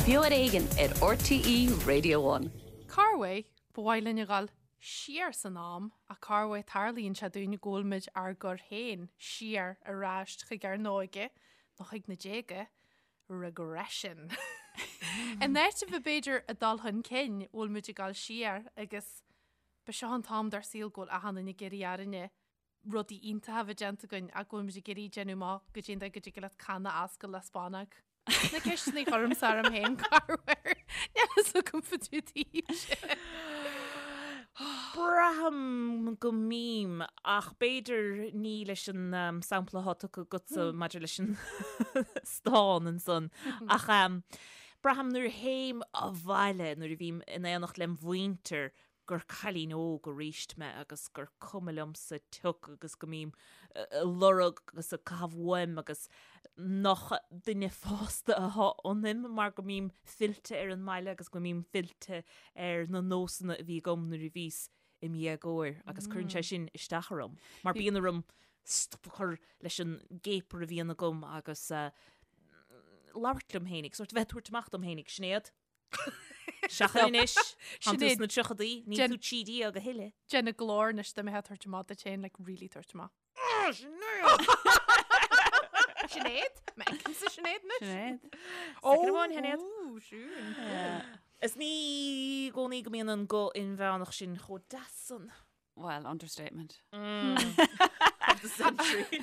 Beo ar Éigean ar RTÉ Radio One. Corruair, ba mhaith linn a dhul siar san am ach corruair tarlaíonn sé dúinn go bhfuil muid ár gcur féin siar ar ais chuig ár n-óige nó chuig na déaga, regression. In áit a bheith b'fhéidir ag dul chun cinn, bhfuil muid ag dul siar agus ba seo an t-am dár saol go bhfuil achan duine ag iarraidh orainne rudaí iontacha a bheith déanta againn ach go bhfuil muid ag iarraidh déanamh amach goidé an dóigh go dtig leat canna a oscailt le spánóg. Na ceisteanna a chuirimse orm féin corruair. Níl a fhios agam fá dtaobh daoibhse. Braithim go mbím, ach b'fhéidir ní leis an sampla atá tugtha agatsa maidir leis an stán ansan. Ach braithim nuair a théim abhaile, nuair a bhím in éineacht lem mhuintir, gur cailín óg aríst mé agus gur cuma liomsa pioc agus go mbím ag lorg agus ag caitheamh uaim agus nach duine fásta atá ionaim mar go mbím fillte ar an mbaile agus go mbím fillte ar na nósanna a bhí agam nuair a bhíos im dhéagóir agus cuireann sé sin isteach orm mar bíonn orm stop a chur leis an gcéapar a bhíonn agam agus labhairt liom féinig, sórt a bheith ag tabhairt amach dom féinig, Sinéad. Seachain anois, Tánn tú sna tríochadaí, níl tú 13 a thuilleadh. Déan an glór anois dá mbeifeá ag tabhairt amach duit féin, like really tabhairt amach. Sinéad? M'fheicimse Sinéad anois. Sinéad. Soicind amháin, Shinéad. Ó, siún. Is ní i gcónaí go mbíonn an guth inmheánach sin chomh deas san. Well, understatement. Of the century.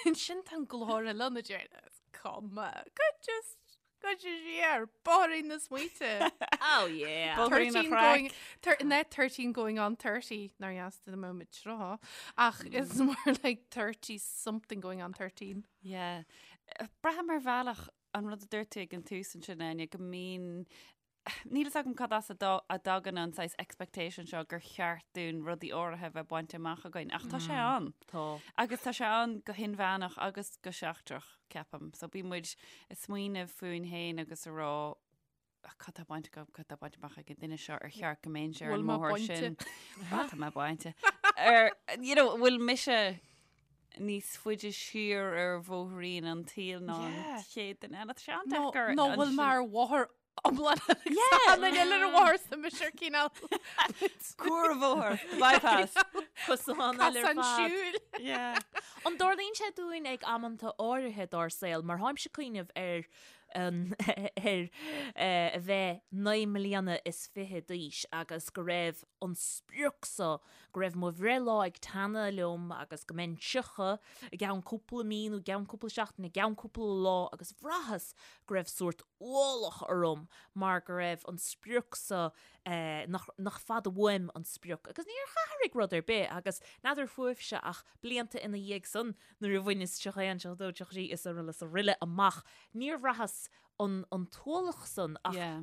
Ansin tá an glór eile ann a deir, is cuma, go just gabh siar, bóithrín na smaointe. Oh yeah. Bóithrín an 13 chraic. going, not 13 going on 30, nár dheas do mbeadh muid tráth, ach it's more like 30 something going on 13. Yeah. Braithim ar bhealach an rud a dúirt tú ag an tús ansin, Áine, go mbíonn Níl fhios agam cad as a dtagann an saghas expectation seo gur cheart dúinn rudaí áirithe a bheith bainte amach againn, ach tá sé ann. Tá. Agus tá sé ann go hinmheánach agus go seachtrach, ceapaim. So bíonn muid ag smaoineamh fúinn féin agus ag rá, cad tá bainte agam, cad tá bainte amach ag an duine seo, ar cheart go mbeinnse ar an Bhfuil mé mbóthar bainte? sin? Á, tá mé bainte. Ar, you know, bhfuil mise níos faide siar ar bhóithrín an tsaoil ná an Yeah. chéad duine eile? Tá sé Nó an-deacair nó bhfuil mé ar bhóthar iomlán an eile ar an bhóthar sa mise ar cineál Cuarbhóthar, bypass. Cosán eile ar Cosán fad. siúil. Yeah. An dtarlaíonn sé dúinn ag amanta áirithe dár saol, mar tháimse ag cuimhneamh ar an ar a bheith 29 mbliana d'aois agus go raibh an sprioc so go raibh mo bhreithlá ag teannadh liom agus go mbeinn 30 i gceann cúpla mí nó i gceann cúpla seachtain, i gceann cúpla lá agus bhraitheas go raibh sórt ualach orm mar go raibh an sprioc so nach, nach fada uaim an sprioc agus níor athraigh rud ar bith agus n'fheadar fúibhse ach blianta ina dhiaidh san nuair a bhaineas 31, 32, 33 is araile is araile amach níor bhraitheas an, an t-ualach san ach Yeah.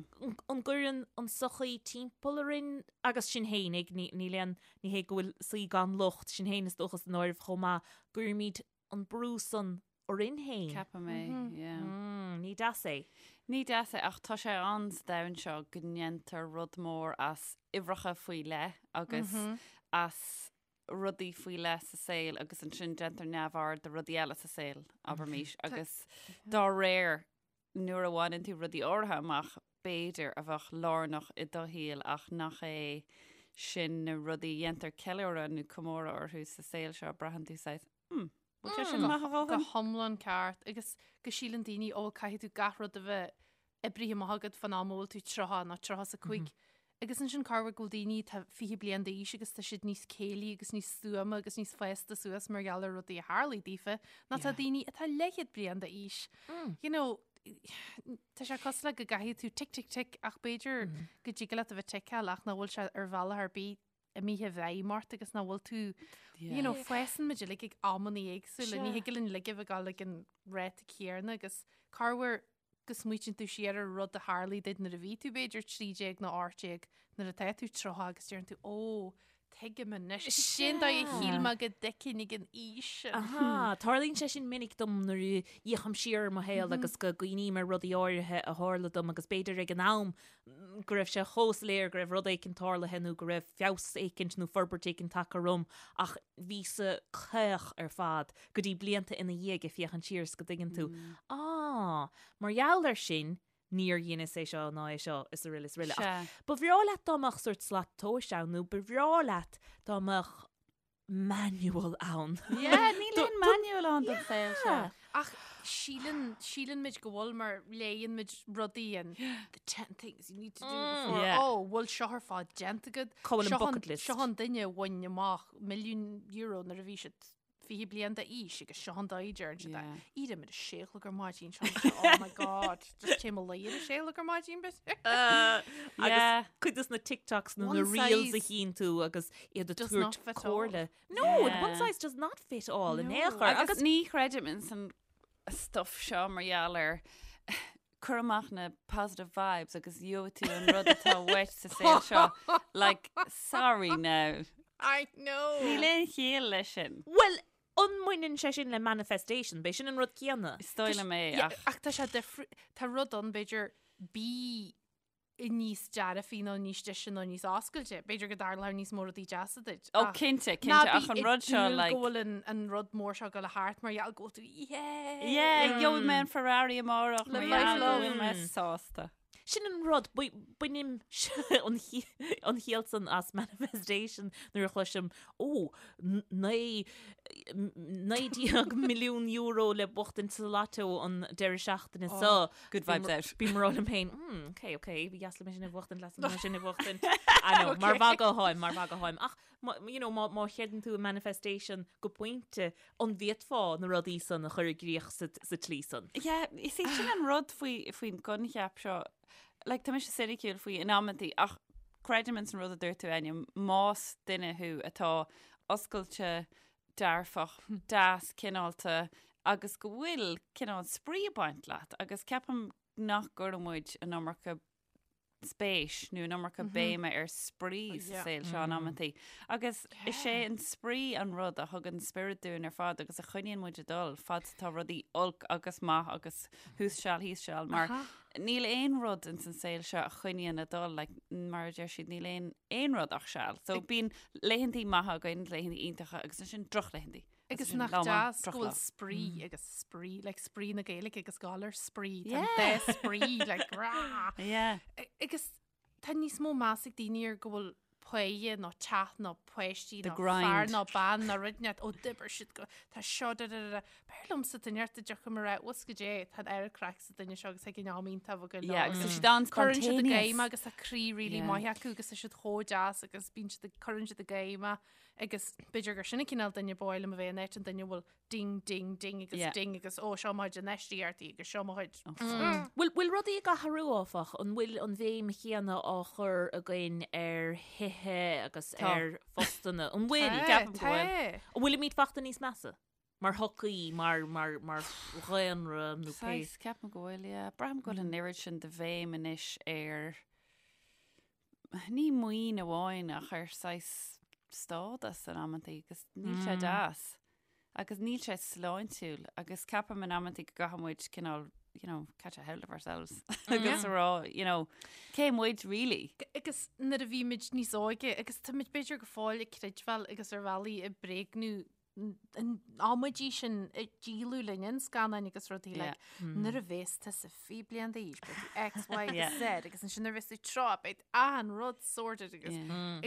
an gcuireann an sochaí timpeall orainn agus sinn fhéinig, ní, níl aon, ní hé go bhfuil saoi gan locht, sinn féin is dócha san áireamh chomh maith, gcuirimid an brú san orainn féin. Ceapaim é, yeah. Mm, ní deas é. Ní deas é ach tá sé ann sa domhan seo go ndéantar rud mór as uimhreacha faoi leith agus as rudaí faoi leith sa saol agus ansin déantar neamhaird de rudaí eile sa saol, abraimis, agus dá réir nuair a bhaineann tú rudaí áirithe amach, b'fhéidir, a bheadh lárnach i do shaol ach nach é sin na rudaí a dhéantar ceiliúradh nó comóradh orthu sa saol seo, braitheann tú saghas, hmm, bhfuil sé sin maith a Go dhóthain? hiomlán ceart agus go síleann daoine, ó, caithfidh tú gach rud a bheith oibrithe amach agat fán am a bhfuil tú 30 nó 35. Agus ansin corruair go bhfuil daoine atá 20 bliain d'aois agus tá siad níos céillí agus níos stuama agus níos fásta suas mar gheall ar rudaí a tharlaigh daofa ná tá daoine atá leathchéad bliain d'aois. You know, tá sé cosúil le go gcaithfidh tú tick tick tick ach b'fhéidir go dtig leat a bheith ticeáil ach nach bhfuil sé ar bhealach ar bith imithe i bhfeidhm ort agus nach bhfuil tú, you know, fásann muid uilig ag amanna éagsúla, ní thig linn uilig a bheith ag dul ag an ráta céanna agus corruair go smaoitíonn tú siar ar rud a tharlaigh duit nuair a bhí tú b'fhéidir 13 nó 18 nuair atá tú 30 agus deireann tú ó, tuigim anois, cén dóigh a shíl mé go dtuigfinn ag an aois sin. Aha, tarlaíonn sé sin minic dom nuair a fhéachaim siar ar mo shaol agus go gcuimhním ar rudaí áirithe a tharla dom agus b'fhéidir ag an am go raibh sé chomh soiléir go raibh rud éicint tarlaithe nó go raibh feabhas éicint nó forbairt éicint tagtha orm ach bhíos-sa caoch ar fad go dtí blianta ina dhiaidh ag féachaint siar is go dtuigeann tú, ah, mar gheall air sin. Níor dheineas é seo ná é seo is araile is araile. Ach ba bhreá leat dá mbeadh sórt slat tomhais ann nó ba bhreá leat dá mbeadh manual ann. Yeah, níl aon manual ann don saol seo. Ach síleann, síleann muid go bhfuil mar léann muid rudaí an the 10 things you need to do before. Yeah. Oh, bhfuil seo ar fad déanta agat. Cá bhfuil an Seo an- bucket list? Seo an duine a bhain amach milliún euro nuair a bhí siad 20 bliain d'aois agus seo an dóigh a deireann siad é. Yeah. Éirím ar a sé a chlog ar maidin seo. Oh my god. Just téim a luí ar a sé a chlog ar maidin bit. Agus Yeah. cuid dos na TikToks nó One na reels a size chíonn tú agus iad ag does tabhairt not fit all. comhairle. No, Yeah. one size does not fit all in No. aon chor. Agus Agus ní chreidim in san stuff seo mar gheall ar cur amach na positive vibes agus gheobhaidh tú an rud atá uait sa saol seo. Like, sorry now. I know. Níl aon chiall leis sin. Bhuel, an mbaineann sé sin le manifestation? B'é sin an rud céanna. Is dóigh liom é, Yeah, ach ach tá sé difri- tá rud ann b'fhéidir bí níos dearfaí nó níos deise nó níos oscailte. B'fhéidir go dtarlóidh níos mó rudaí deasa duit. Ó, Ach cinnte, ná cinnte, bí ach an ag rud seo, dúil like- go bhfuil an, an rud mór seo ag dul thart mar gheall go bhfuil tú, yeah! Yeah, gheobhaidh mé an Ferrari amárach mar Live life gheall go love. bhfuil mé sásta. Sin an rud, bainim an chiall san as manifestation nuair a chloisim, ó, €19 milliún le buachtaint sa lotto an deireadh seachtaine seo. Good vibes out. Bím ag rá liom féin, hmm, ok, ok, ba dheas liom é sin a bhuachtaint, deas liom é sin a bhuachtaint. I know, mar mhagadh atáim, mar mhagadh atáim. Ach, you know, má chreideann tú i manifestation go pointe, an bhféadfá na rudaí san a chur i gcrích sa tslí san? Yeah, is é sin an rud faoi, faoin gcoincheap seo. Like, tá mise soiniciúil faoi in amantaí, ach creidim ins an rud a dúirt tú, Enya, más duine thú atá oscailte, dearfach, deas, cineálta, agus go bhfuil cineál spraoi ag baint leat, agus ceapaim nach gcuireann muid an iomarca spéis nó an iomarca béime ar spraoi sa saol seo in amantaí. Agus is é an spraoi an rud a thugann spiorad dúinn ar fad agus a choinníonn muid ag dul fad is atá rudaí olc agus maith agus thuas seal thíos seal mar níl aon rud ins an saol seo a choinníonn ag dul like, mar a deir siad níl aon aon rud ach seal. So bíonn laethantaí maithe againn, laethantaí iontacha agus ansin drochlaethantaí. Agus nach deas go bhfuil spraoi agus spraoi, like spraoi na Gaeilge agus galar spraoi, tá an dá spraoi, like rah! Yeah. Agus tá níos mó meas ag daoine ar go bhfuil páighe nó teach nó páistí The nó grind. fear nó bean nó rud inteacht, ó d'oibir siad go, tá seo da da da da. B'fhearr liomsa duine inteacht a dtiocfaidh mé a rá, bhfuil go dté, tá an oiread craic sa duine seo agus ag an am iontach go Yeah, agus tá siad an Cuireann siad i spontaneous. gcéim agus tá croí really Yeah. maith acu agus tá siad chomh deas agus bíonn siad ag cuireann siad i gcéim Agus b'fhéidir gur sin an cineál duine ba mhaith liom a bheith in áit an duine a bhfuil ding, ding, ding agus Yeah. ding agus ó seo mo chuid infheistíochtaí agus seo mo chuid. Bhfuil bhfuil rudaí ag athrú áfach? An bhfuil an bhéim chéanna á chur againn ar thithe agus Tá. ar phostanna? An bhfuil? Tá, ceapaim go bhfuil. tá. An bhfuilimid fachta níos measa? Mar shochaí, mar mar mar dhaonra nó pé. Saghas, ceapaim go bhfuil, yeah. Braithim go bhfuil an oiread sin de bhéim anois ar ní maoin amháin ach ar saghas stádas in amantaí agus níl sé deas agus níl sé sláintiúil agus ceapaim in amantaí go gcaithfidh muid cineál you know, catch a hold of ourselves agus a rá, you know, cé muid really? Agus nuair a bhí muid níos óige agus tá muid b'fhéidir go fóill ag creidbheáil agus ar bhealaí ag bréagnú an amaidí sin a díoladh linn in scannáin agus rudaí like nuair a bhéas tusa 20 bliain d'aois beidh tú X, Y agus Z agus ansin nuair a bhéas tú 30 beidh achan rud sorted agus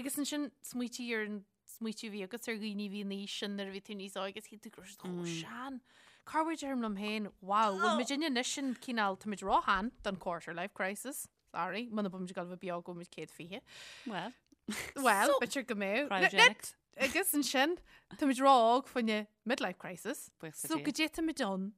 agus ansin smaoitigh ar an smaoitiú a bhí agat ar dhaoine a bhí in aois sin nuair a bhí tú níos óige agus shíl tú go raibh siad chomh sean. Corruair deirim liom féin, wow, bhfuil muid inne anois sin cineál tá muid róshean don quarter life crisis. Sorry, muna bhfuil muid ag dul a bheith beo go bhfuil muid 120. Well, Well, b'fhéidir go mbeadh. Cryogenics. Agus ansin, táimid ró-óg fá choinne midlife crisis. Buíochas le So Dia. go dté táimid ann.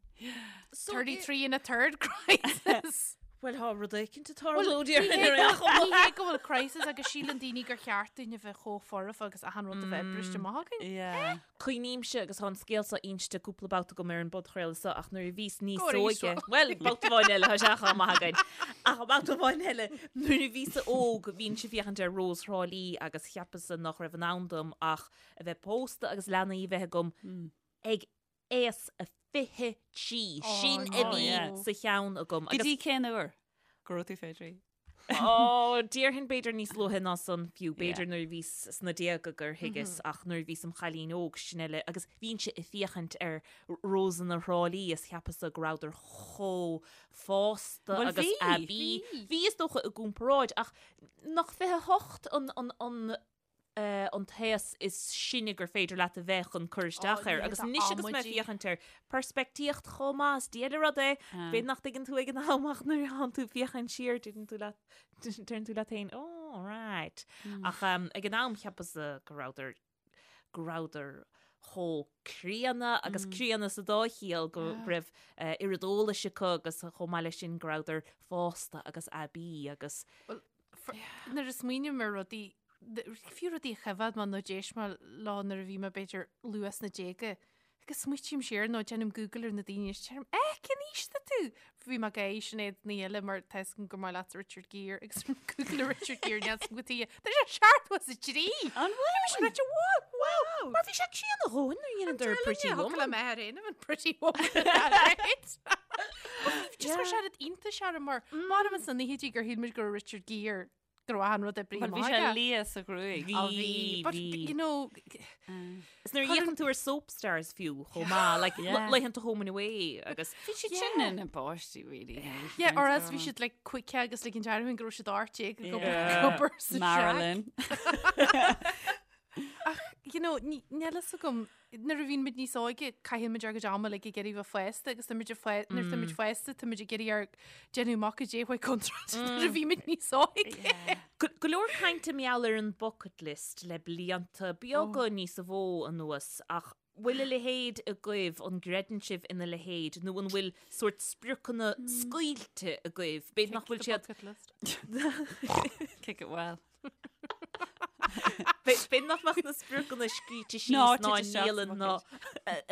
33 and a third crisis. Bhuel, tá rud éicint ag Well, tarlú ní déarfainn hé ar aon go- chuma. ní hé go bhfuil crisis agus síleann daoine gur cheart dúinn a bheith chomh foirfe agus achan rud a bheith briste amach againn. Yeah. Cuimhnímse agus tá an scéal seo inste cúpla babhta agam ar an bpodchraoladh seo ach nuair a bhíos níos Go arís, óige, bhuel, babhta amháin eile, tá sé chomh maith againn. Ach babhta amháin eile, nuair a bhíos óg, bhínnse ag féachaint ar Rós Thrá Lí agus cheapas-sa nach raibh in ann dom ach a bheith pósta agus leanaí a bheith agam ag aois a 23. Oh, Sin a no. bhí yeah. sa cheann agam. Go dtí cén uair go raibh tú 23? Ó, déarfainn b'fhéidir níos luaithe ná san fiú, b'fhéidir nuair a bhíos sna déaga gur thuigeas ach nuair a bhíos im chailín óg sin eile agus bhínnse ag féachaint ar Rósanna Thrá Lí is cheapas-sa go rabhadar chomh fásta Bhuel agus bhí, aibí. Bhí is dócha i gcomparáid ach nach 28 an, an, an, an t-aos is sine gur féidir leat a bheith chun cur isteach air. Agus anois agus mé ag féachaint air, peirspictíocht chomh maith, is diail an rud é. B'fhéidir nach dtuigeann tú ag an am ach nuair a thánn tú ag féachaint siar, deireann tú leat, deireann tú leat féin, oh, right. Ach ag an am cheapas-sa go rabhadar, go rabhadar chomh críonna agus críonna sa dá chiall go raibh oiread eolais acu agus chomh maith leis sin go rabhadar fásta agus aibí agus Nuair a smaoiním ar rudaí, fiú rudaí a choimhéad mé nó d'éist mé leo nuair a bhí mé b'fhéidir luath sna déaga, agus smaoitím siar nó déanaim Google ar na daoine is deirim, eh, cén aois atá tú? Bhí mé ag gáire Sinéad Ní Eile mar tá fhios agam gur maith leat Richard Gere agus Google ar Richard Gere níl fhios agam cad chuige. Tá sé 73! An bhfuil? Bhí sé ráite, wow, wow! Mar bhí sé críonna a dhóthain nuair a dheineadar Pretty Woman. Thug le mé ar aon an Pretty Woman. Right? Just chuir sé rud iontais orm mar mairim sna naochaidí gur shíl muid go raibh Richard Gere go raibh achan rud oibrithe Bhuel, bhí amach sé aige. liath sa ghruaig. Bhí, Á, bhí. But, bhí. you know, Is nuair a fhéachann tú ar soap stars fiú chomh maith, like Yeah. laethanta Home and Away agus Bhí siad sin ina bpáistí, really. yeah, or else bhí siad like quick agus like an deartháir go raibh siad 18 ag obair Yeah. ag obair sa shack. Marilyn. Ach, you know, ní- níl fhios agam, nuair a bhíonn muid níos óige, caitheann muid ár gcuid ama like, ag iarraidh bheith fásta agus tá muid ag fá- nuair atá muid fásta, tá muid ag iarraidh ár déanamh amach goidé a chuaigh contráilte nuair a bhí muid níos óige. Go go leor cainte mar gheall ar an bucket list le blianta beaga níos mó anuas ach bhfuil a leithéid agaibh, an gcreideann sibh ina leithéid nó an bhfuil sórt spriocanna scaoilte agaibh? B'fhéidir nach bhfuil siad Bucket list. Kick it well. B'fhéidir nach mbeadh na spriocanna scríte síos Ná ná tite isteach sa ndialann ná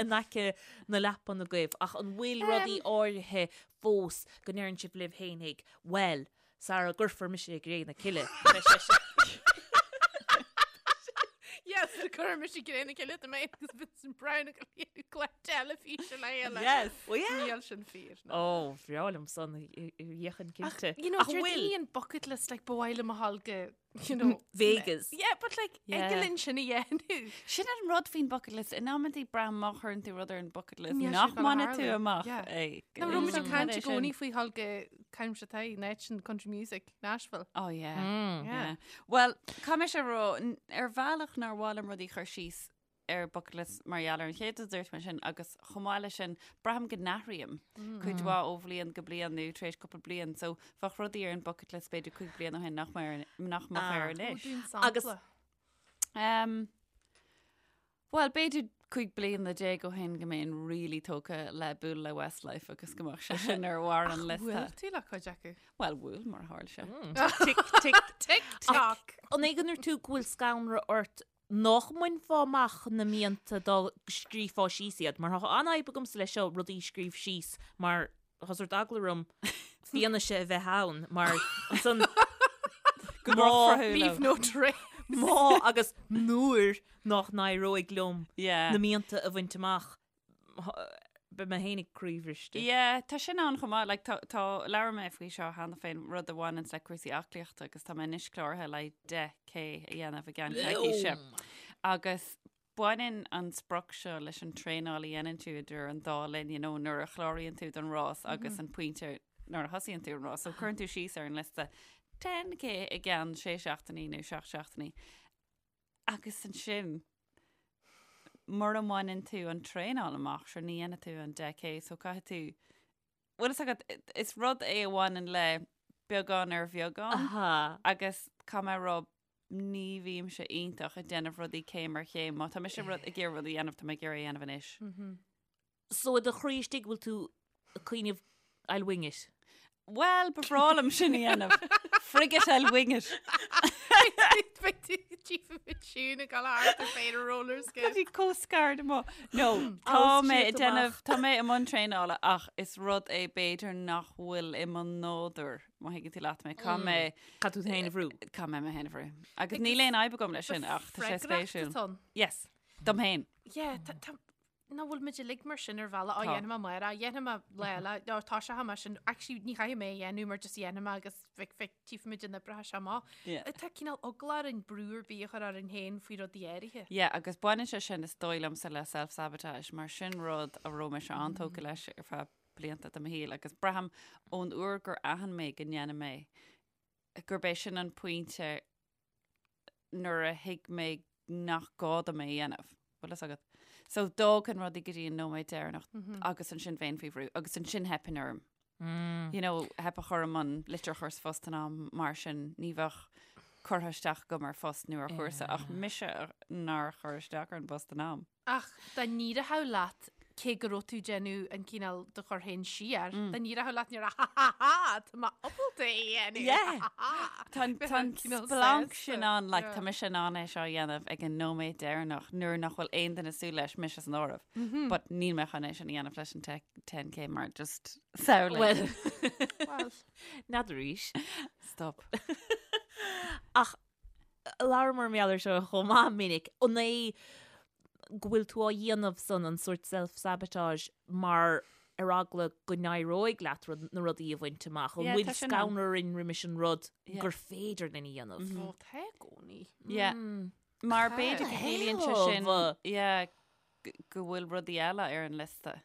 in aice na leapan agaibh ach an bhfuil rudaí áirithe fós go ndeireann sibh libh fhéinig, bhuel, sara gcuirfear mise i gcré na cille, beidh sé sin. Yes, cuirfear mise i gcré na cille do mé agus Vincent Browne ag léiriú clár teilifíse le chéile. Yes. Well, yeah. Níl sin fíor. Ó, bhreá liom san dhéanfainn cinnte. You know, Ach deir bhfuil? daoine an bucket list, like, ba mhaith liom a ghabháil go, you know, Vegas. Yeah, but like, Yeah. ag linn sin a dhéanamh. Sin an rud faoin bucket list. In amantaí braithim má chuireann tú rud ar an bucket list Níl sé nach gonna mbainfidh tú tharlú. amach Yeah. é. Ná raibh muid ag Is caint é i sin. gcónaí faoi ghabháil go caimse tá in country music, Nashville. Oh yeah. Yeah. Yeah. Well, caithfidh mise a rá, n- ar bhealach nár mhaith liom rudaí a chur síos ar bucket list mar gheall ar an chéad rud a dúirt mé sin agus chomh maith leis sin braithim go n-athraím cuid mhaith ó bhliain go bliain nó tar éis cúpla bliain so bheadh rudaí ar an bucket list b'fhéidir 5 bliain ó shin nach mbeadh ar nach mbeadh air Ah. anois. Agus- Agus Um, Well, b'fhéidir 15 bliana ó shin go mbeinn really tógtha le bualadh le Westlife agus go mbeadh sé sin ar bharr an liosta. Bhuail tú le cuid acu. Well, bhuail mar a tharla sé. Tic, tic, Tic toc. An é go ndúirt tú go bhfuil scanradh ort nach mbainfeá amach na mianta dá scríobhfá síos iad, mar tá an-fhadhb agamsa leis seo rudaí a scríobh síos mar tá sórt eagla orm fianaise a bheith ann mar ansan Go má drochthrathúil. Leave no trace. má agus nuair nach n-éireoidh liom Yeah. na mianta a bhaint amach beidh mé fhéinig croíbhriste. Yeah, tá sin ann chomh maith, like, tá, tá, labhair mé faoi seo cheana féin, rud a bhaineanns le cúrsaí aclaíochta agus tá mé anois cláraithe le 10K a dhéanamh i gceann coicíse. Agus baineann an sprioc seo leis an traenáil a dhéanann tú idir an dá linn, you know, nuair a chláraíonn tú don rás agus an pointe nuair a thosaíonn tú an rás. So cuireann tú síos ar an liosta 10K i gceann sé seachtainí nó seacht seachtainí. Agus ansin, mura mbaineann tú an traenáil amach, sure ní dhéanfaidh tú an 10K, so caithfidh tú, bhfuil fhios agat, is rud é a bhaineann le beagán ar bheagán Aha. agus caithfidh mé a rá, ní bhímse iontach ag déanamh rudaí céim ar chéim. Má tá mise rud ag iarraidh rud a dhéanamh, tá mé ag iarraidh é a dhéanamh anois. So i do chroí istigh bhfuil tú ag cuimhneamh I'll wing it. Bhuel, ba bhreá liom sin a dhéanamh. Frig it, I'll wing it. Beidh tú Chief of Tune ag dul thart ar féin ar roller skate. Bhí chomh scared amuigh. No, tá I'll mé ag shoot déanamh, amach. tá mé i mbun traenála ach is rud é b'fhéidir nach bhfuil i mo nádúr, má thuigeann tú leat mé. Caithfidh mé, Caithfidh tú féin a bhrú. caithfidh mé mé féin a bhrú. Agus níl aon fhadhb agam leis sin ach tá sé Freagracht spéisiúil. atá ann. Yes, dom féin. Yeah, tá, tá, Nach bhfuil muid uilig mar sin ar bhealach, á dhéanfaidh mé amárach, dhéanfaidh mé lá eile, nó tá sé thá sin, actually ní chaithfidh mé a dhéanamh mar just dhéanfaidh mé agus feic feic tchífimid an oibreoidh sé amach. Tá cineál eagla orainn brú ar bith a chur orainn féin faoi rudaí áirithe. Yeah, agus baineann sé sin is dóigh liomsa le self-sabotage mar sin rud a raibh mise an-tógtha leis ar feadh blianta de mo shaol agus braithim ón uair gur aithin mé go ndéanaim é gurb é sin an pointe nuair a thuig mé nach gá dom é a dhéanamh. Bhfuil fhios agat? So d'fhágfainn rudaí go dtí an nóiméad deireanach agus ansin bheinn faoi bhrú agus ansin theipfinn orm. You know, theipfeadh orm an litir a chur sa phost in am mar sin ní bheadh curtha isteach agam ar phost nó ar chúrsa ach mise nár chuir isteach ar an bpost in am. Ach dá n-éireodh leat, cé go raibh tú ag déanamh an cineál do chur féin siar, dá n-éireodh leat ní raibh ha ha ha, tá mé ábalta é a dhéanamh, Yeah. ha ha ha. Tá an Bheadh an cineál splanc sásta. sin ann, like, Yeah. tá mise in ann é seo a dhéanamh ag an nóiméad deireanach nuair nach bhfuil aon duine ag súil leis, mise san áireamh. But níl mé chun é sin a dhéanamh leis an 10K mar just samhlaigh. Well, Well, n'fheadar arís. Stop. Ach labhramar mar gheall air seo chomh maith minic, an é go bhfuil tú á dhéanamh san an sórt self-sabotage mar ar eagla go n-éireoidh leat rud, na rudaí a bhaint amach, an Yeah, bhfuil tá sin ann. scanradh orainn roimis an rud Yeah. gur féidir linn a dhéanamh? ó, tá i gcónaí. Yeah. Mar b'fhéidir go gciallaíonn sé sin, Hell. yeah, go bhfuil rudaí eile ar an liosta.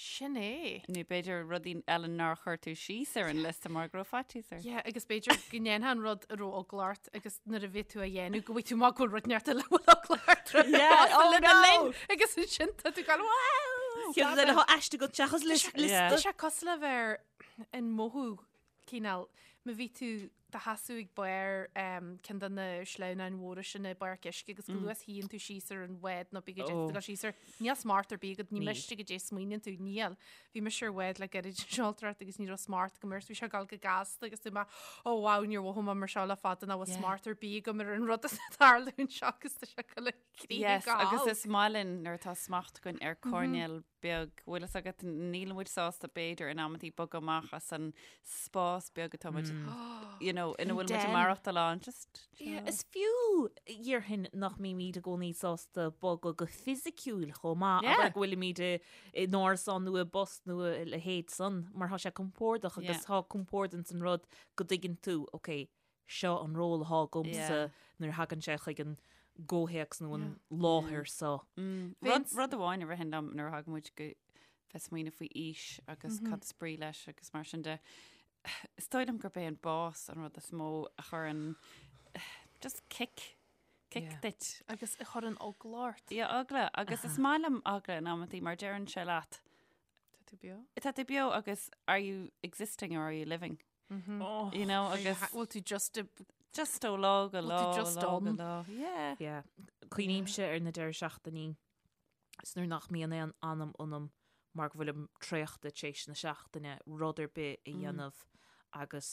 Sin é. Nó b'fhéidir rudaí eile nár chuir tú síos ar an liosta mar go raibh faitíos ort. Yeah, agus b'fhéidir go ndéanfá an rud a raibh eagla ort agus nuair a bhí tú á dhéanamh go bhfaighidh tú amach go bhfuil rud inteacht eile a bhfuil eagla ort roimhe Yeah, fosta oh lena no! linn agus ansin tá tú ag gabháil wow! Ceann eile atá aiste agat seachas Yeah. liosta. Tá sé cosúil le bheith ar an mothú cineál, má bhí tú do sheasamh ag barr ceann de na sleamhnáin mhóra sin i bpáirc uisce agus go luath is a shuíonn tú síos ar an bhád nó bí go dtéann tú dul síos air, níl smacht ar bith agat, ní miste goidé a smaoiníonn tú, níl. Bhí mise ar bhád le gairid an seoltóireacht agus ní raibh smacht agam air, so bhí sé ag dul go gasta agus dúirt mé, oh wow, níor mhothaigh mé mar seo le fada nach bhfuil smacht ar bith agam ar an rud atá ag tarlú anseo agus tá sé ag dul i Yes, agus is maith linn nuair atá smacht againn ar coirnéal beag, bhfuil fhios agat, níl muid sásta b'fhéidir in amantaí bogadh amach as an spás beag atá muid, you know, ina bhfuil muid ag maireachtáil ann, just, Yeah, is fiú déarfainn nach mbímid i gcónaí sásta bogadh go fisiciúil chomh maith, Yeah. abair go bhfuilimid i in árasán nó i bpost nó a leithéid san, mar tá sé compordach agus Yeah. tá compord ins an rud go dtuigeann tú, ok, seo an ról atá agamsa nuair a thagann sé chuig an gcomhthéacs nó an láthair seo. Rud, rud amháin a ritheann liom nuair a thagann muid go bheith smaoineamh faoi aois agus cad is brí leis agus mar sin de, is dóigh liom gurb é an bás an rud is mó a chuireann just kick, kick duit. Agus a chuireann eagla ort. Yeah, eagla. Agus is maith liom eagla in amantaí mar deireann sé leat. Tá tú beo? Tá tú beo agus are you existing or are you living? You know, agus Bhfuil tú just a just ó lá go lá, tú just lá go on? lá. Yeah. Yeah. Cuimhnímse ar na deireadh seachtainí is nuair nach mbíonn aon anam ionam mar go bhfuilim traochta tar éis na seachtaine rud ar bith a dhéanamh agus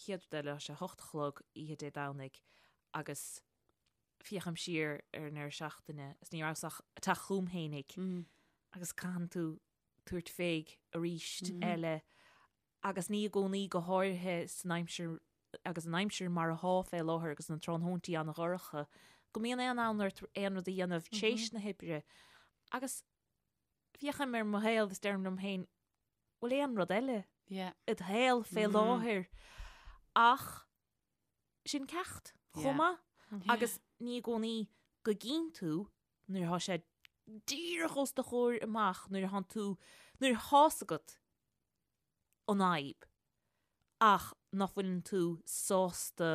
chéad rud eile tá sé a hocht a chlog oíche Dé Domhnaigh agus féachaim siar ar an ndeireadh seachtaine is ní rabhas ach ag teacht chugam fhéinig agus caitheann tú tabhairt féig arís eile agus ní i gcónaí, go háirithe san aimsir agus an aimsir mar athá fé láthair agus na tráthnóintí an-dhorcha, go mbíonn aon fhonn ort aon rud a dhéanamh tréis na hoibre. Agus féachaim ar mo shaol is deirim liom féin, bhfuil aon rud eile i do shaol fé láthair? Ach sin ceacht chomh maith agus ní i gcónaí go gcíonn tú nuair atá sé díreach os do chomhair amach, nuair atánn tú, nuair atá's agat an fhadhb ach nach bhfuileann tú sásta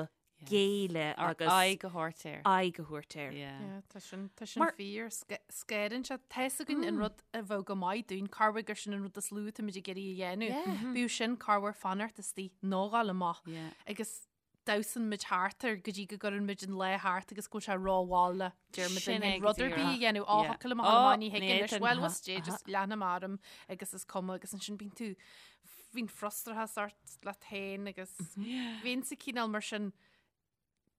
géilleadh agus aghaidh a thabhairt air. aghaidh a thabhairt air. Yeah. Tá sin tá sin fíor scanraíonn sé. Tá's againn an rud a bheadh go maith dúinn, corruair gur sin an rud is lú atáimid ag iarraidh a dhéanamh. Bíodh sin corruair fanacht istigh nó ghabháil amach. Agus damhsann muid thart air go dtí go gcuireann muid an lá thart agus go bhfuil sé rómhall le deir muid Sin linn é féin go rud ar bith a díreach. dhéanamh. Á, Yeah. thiocfadh liom a ghabháil Á, amach, ní thig ní anois. fhéadfainn. Bhuel, what's Dé, just leanfaidh mé orm agus is cuma agus ansin bíonn tú bíonn frustrachas ort leat féin agus bhínnse cineál mar sin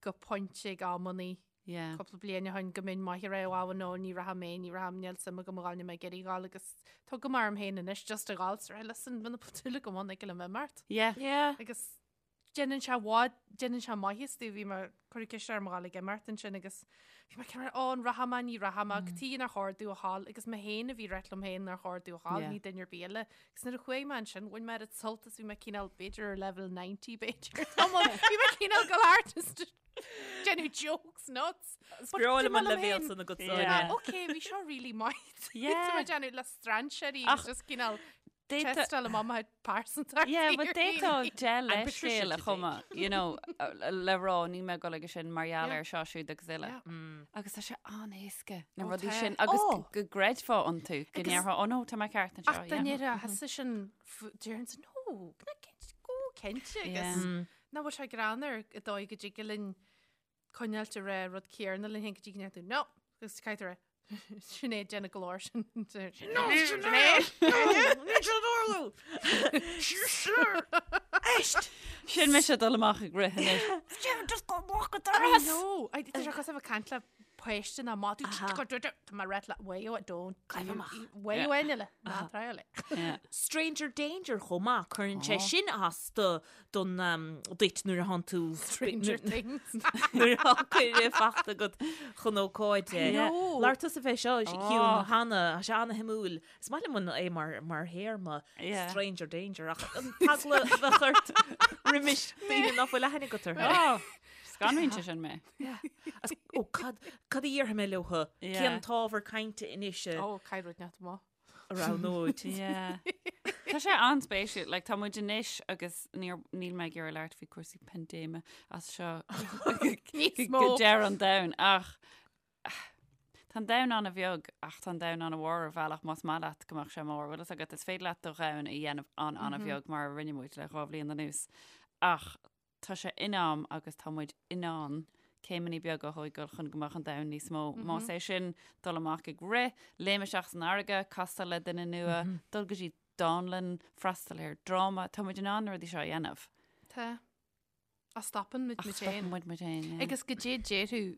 go pointe ag amannaí Yeah. cúpla bliain ó shin go mbeinn maith ar aghaidh nó ní rachaidh mé, ní rachaidh, níl suim agam a ghabháil, níl mé ag iarraidh a ghabháil agus tugaim orm féin anois just a ghabháil, so listen, muna bhfuil dúil agam ann ag liom imeacht. Yeah. Yeah. Agus. déanann sé i bhfad, déanann sé maitheas domh, bhí mé, cuireadh ceist orm a ghabháil ag imeacht ansin agus bhí mé cineál, ó an rachaidh mé, ní rachaidh mé, cad chuige nár chóir domh a ghabháil agus mé féin a bhí ag ráit liom féin nár chóir domh a ghabháil, ní duine ar bith eile. Agus nuair a chuaigh mé ansin, bhain mé oiread sult is bhí mé cineál, b'fhéidir ar level 90 b'fhéidir, tamall, bhí mé cineál go thart is déanamh jokes nuts. Is breá liom an leibhéal san agat Sonia. Ok, bhí seo really maith. Yeah. Tá mé déanamh le strainséirí agus just cineál Tástáil amach mo phearsantacht. Yeah, but d'fhéadfá dea-leithscéal a chumadh, you know, le rá níl mé ag dul aige sin mar gheall ar seo siúd agus uile. Agus tá sé an-éasca na rudaí sin agus go gcreidfeá iontu, go ndéarfá, oh no, tá mé ceart anseo. Ach dá ndéarfá thusa sin, déarfainnse, no, go cinnte agus nach bhfuil sé greannmhar an dóigh go dtig linn coinneáilt ag rá rud céanna linn féin go dtí go ndéarfaidh tú no! Agus caithfidh tú rá Sinéad déanamh go leor sin. No Sinéad! Níl sé ag tarlú! Éist! Sin mise ag dul amach ag rith anois. Just go amach go doras! I know! Tá sé cosúil le bheith ag caint le páiste ná má tú Tá mé ag rá leat way o don't way o eile ná triail é. Stranger danger chomh maith, cuireann sé sin as do don duit nuair a thánn tú Stranger Things. nuair atá cuireadh fachta agat chun ócáide. Labhair tusa fé seo Shiún cheana, tá sé ana-shuimiúil. Is maith liom an é mar mar théarma stranger danger ach an t-eagla a bheadh ort roimis daoine nach bhfuil aithne agat orthu. Scanraíonn sé sin mé. Ó cad cad a dhéarfaidh mé leo? Cén t-ábhar cainte anois a Ó, caithfidh rud inteacht amach. a roghnóid. Yeah. Tá sé an-spéisiúil, like, tá muid anois agus níor, níl mé ag iarraidh labhairt faoi cúrsaí paindéime as seo Níos mó. go deireadh an domhain ach tá an domhan an-bheag ach tá an domhan an-mhór ar bhealach más maith leat go mbeadh sé mór. Bhfuil fhios agat, is féidir leat do dhomhan a dhéanamh an-an-bheag mar a rinne muid le 2 bhliain anuas ach Tá sé in am agus tá muid in ann céimeanna beaga a thógáil chun go mbeadh an domhan níos mó. Más é sin dul amach ag rith, léim isteach san fharraige, castáil le duine nua, dul go dtí dánlann, freastal ar dráma, tá muid in ann na rudaí seo a dhéanamh. Tá. Ach stopann muid Ach muid féin. stopann muid muid féin, yeah. Agus goidé déarfadh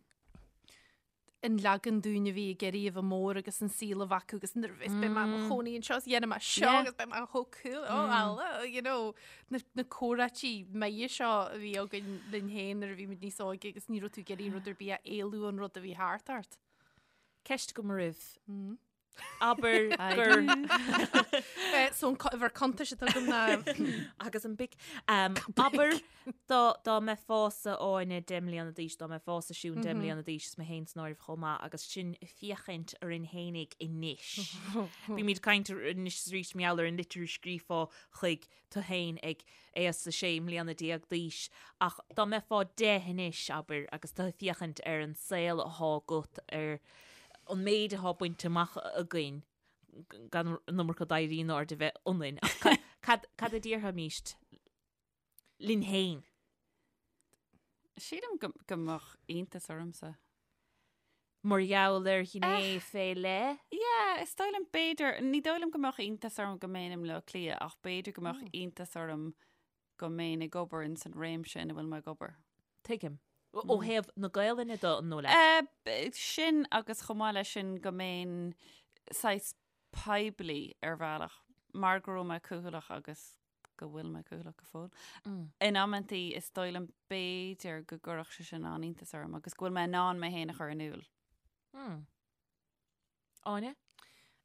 an leagan dúinn a bhí ag iarraidh a bheith mór agus an saol a bheith acu agus nuair a bheas beidh mé i mo chónaí anseo is dhéanfaidh mé seo agus beidh mé chomh cool oh Allah you know na na comhráití maithe seo a bhí againn linn féin nuair a bhí muid níos óige agus ní raibh tú ag iarraidh rud ar bith a éalú ón rud a bhí thart ort. Ceist agam oraibh. Abair gur. So an uimhir cuntais atá agam ná. Agus an BIC. Abair dá mbeifeása Áine 10 mbliana d'aois, dá mbeifeása Siún 10 mbliana d'aois is mé féin san áireamh chomh maith agus sinn ag féachaint orainn fhéinig anois. Bímid ag caint anois is arís mar gheall ar an litir a scríofá chuig tú féin ag aois a 16 mbliana d'aois ach dá mbeifeá 10 anois, abair, agus tú ag féachaint ar an saol athá agat, ar an méid athá bainte amach againn, gan an iomarca d'éirí in airde a bheith ionainn, ach cad, cad a déarfaimíst linn féin? Sílim go, go mbeadh iontas ormsa. Mar gheall ar ghné fé leith? Yeah, is dóigh liom b'fhéidir, ní dóigh liom go mbeadh iontas orm go mbeinn i mBleá Cliath ach b'fhéidir go mbeadh iontas orm go mbeinn ag obair ins an réimse ina bhfuil mé ag obair. Tuigim. Ó thaobh na Gaelainne de, an dóigh leat? Eh, sin agus chomh maith leis sin go mbeinn saghas poiblí ar bhealach mar go raibh mé cúthaileach agus go bhfuil mé cúthaileach go fóill. In amantaí is dóigh liom b'fhéidir go gcuirfeadh sé sin an-iontas orm agus go bhfuil mé in ann mé féin a chur in iúl. Áine?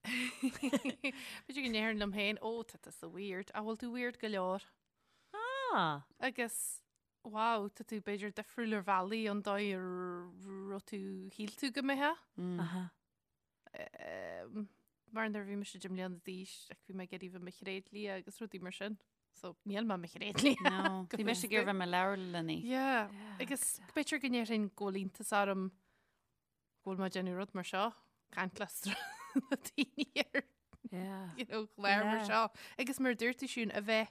B'fhéidir go ndéarfainn liom féin, ó, tá tusa weird, an bhfuil tú weird go leor. Ah! Agus, wow, tá tú b'fhéidir difriúil ar bhealaí ón dóigh a raibh tú, shíl tú go mbeifeá. Aha. Mar nuair a bhí mise 10 mbliana d'aois, like, bhí mé ag iarraidh bheith i mo thréadlia agus rudaí mar sin. So, níl mé i mo thréadlia. No, bhí mise ag iarraidh bheith i mo leabharlannaí. Yeah, agus b'fhéidir go ndéarfainn go bhfuil iontas orm go bhfuil mé ag déanamh rud mar seo, caint le daoine ar Yeah. you know, clár mar Yeah. seo. Agus mar a dúirt tú Siún, a bheith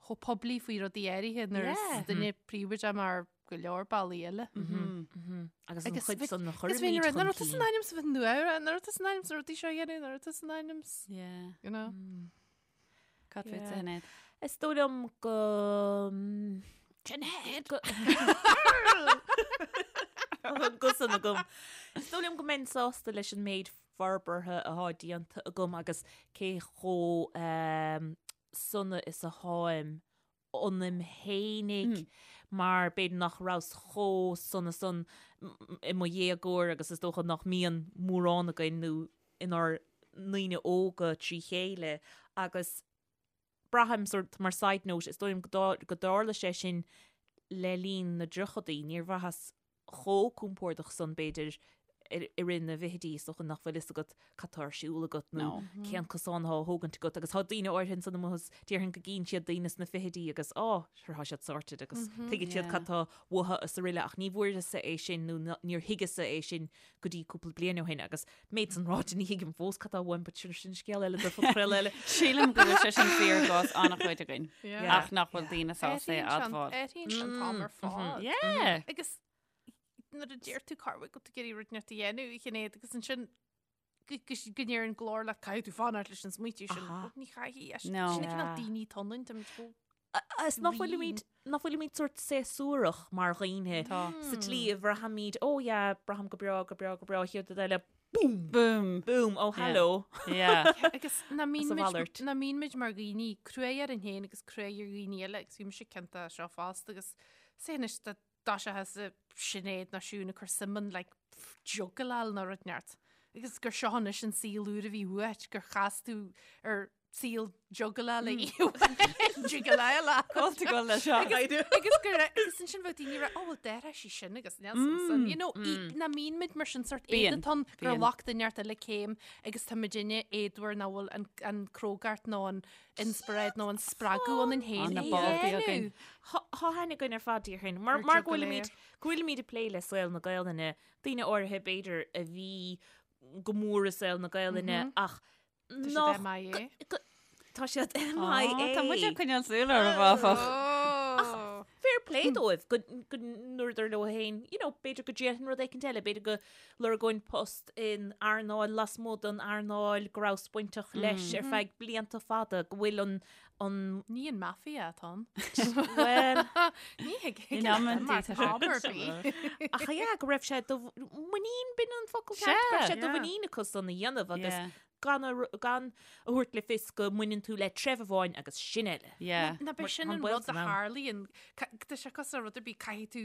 chomh poiblí faoi rudaí áirithe nuair is Yeah. duine príobháideach mar go leor bealaí eile. Agus an Agus chuid bhí- san a Agus chuirimid bhí chun nach raibh tusa in cinn. ainm is a bheith nua, nach raibh tusa in ainm is na rudaí seo a dhéanamh, nach raibh tusa in ainm is, Yeah. you know. Cad Yeah. fútsa, Sinéad? Is dóigh liom go... Sinéad! go- An guth san agam. Is dóigh liom go mbeinn sásta leis an méid forbartha athá déanta agam agus cé chomh sona is atháim. ionaim fhéinig mar b'fhéidir nach rabhas chomh sona san i mo dhéagóir agus is dócha nach mbíonn mórán againn nó inár ndaoine óga trí chéile agus braithim sort mar side note is dóigh liom go dtarla sé sin le linn na dtríochadaí, níor bhraitheas chomh compordach san b'fhéidir i rith na bhfichidí is dócha nach bhfuil fhios agat cad tá ar siúl agat nó cén cosán atá á thógaint agat agus tá daoine áirithe ansan amuigh is déarfainn go gcíonn siad daoine sna fichidí agus á sure tá siad sorted agus tuigeann siad cad tá uathu is araile ach ní bhfuaireas-sa é sin nó níor thuigeas-sa é sin go dtí cúpla bliain ó shin agus méid san ráite ní thuigim fós cad tá uaim but sin sin scéal eile do phodchraoladh eile. Sílim go bhfuil sé sin fíor i gcás an-chuid againn ach nach bhfuil daoine sásta é a admháil. Athraíonn sé an t-am ar fad. Yeah. Agus nuair a deir tú cá bhfuil tú ag iarraidh rud inteacht a dhéanamh a Shinéad agus ansin go ndeir an glór leat caithfidh tú fanacht leis an smaoitiú sin. Ní chaithfidh. Sin an cineál daoine atá ionainn, táimid chomh Is nach bhfuilimid, nach bhfuilimid sórt séasúrach mar dhaoine sa tslí a bhraithimid, oh yeah, braithim go breá, go breá, go breá, chéad rud eile, boom! Boom! Boom! Oh, hello! Yeah. Agus nach mbíonn muid, nach mbíonn muid mar dhaoine cruaidh orainn féin agus cruaidh ar dhaoine eile agus bhí mise ciontach as seo fosta agus sé anois dá dtoiseochthá Sinéad nó Siún ag cur suim in like juggleáil nó rud inteacht agus gur seo anois an saol úr a bhí uait gur chas tú ar saol juggleála juggleála Cóta go le seo. agus gur agus ansin bheadh daoine ag rá oh well d'athraigh sí sin agus níl san san you know nach mbíonn muid mar sin sort Bíonn, éadatán gur bíonn. ghlac duine inteacht eile céim agus tá muidinne éadmhar nach bhfuil an an crógacht nó an inspioráid nó an spreagadh ionainn féin Tá na é báltaí dhéanamh. againn. Tá aithne againn ar fad déarfainn. Mar Ar mar go bhfuilimid juggler. go bhfuilimid ag plé le saol na Gaelainne, daoine áirithe b'fhéidir a bhí go mór i saol na Gaelainne ach Tá siad MIA. Tá siad MIA. Tá muid ag coinneáil súil orthu áfach. Ach fair play dóibh go ndúradar leo féin, you know, b'fhéidir go ndéanfainn rud éicint eile, b'fhéidir go lorgóinn post in earnáil lasmuigh den earnáil go rabhas bainteach leis ar feadh blianta fada, go bhfuil an an Ní an mafia atá ann. Well, Ní thig In amantaí tá sé am ar bith. ach yeah, go raibh sé de mhuinín b'in an focal ceart, go raibh sé de mhuinín acu san a dhéanamh agus Yeah. gan a gan a thabhairt le fios go mbaineann tú le treibh amháin agus sin eile. Yeah. Ná b'é sin Tá an baol rud a san am. tharlaíonn. Tá sé cosúil le rud ar bith, caithfidh tú,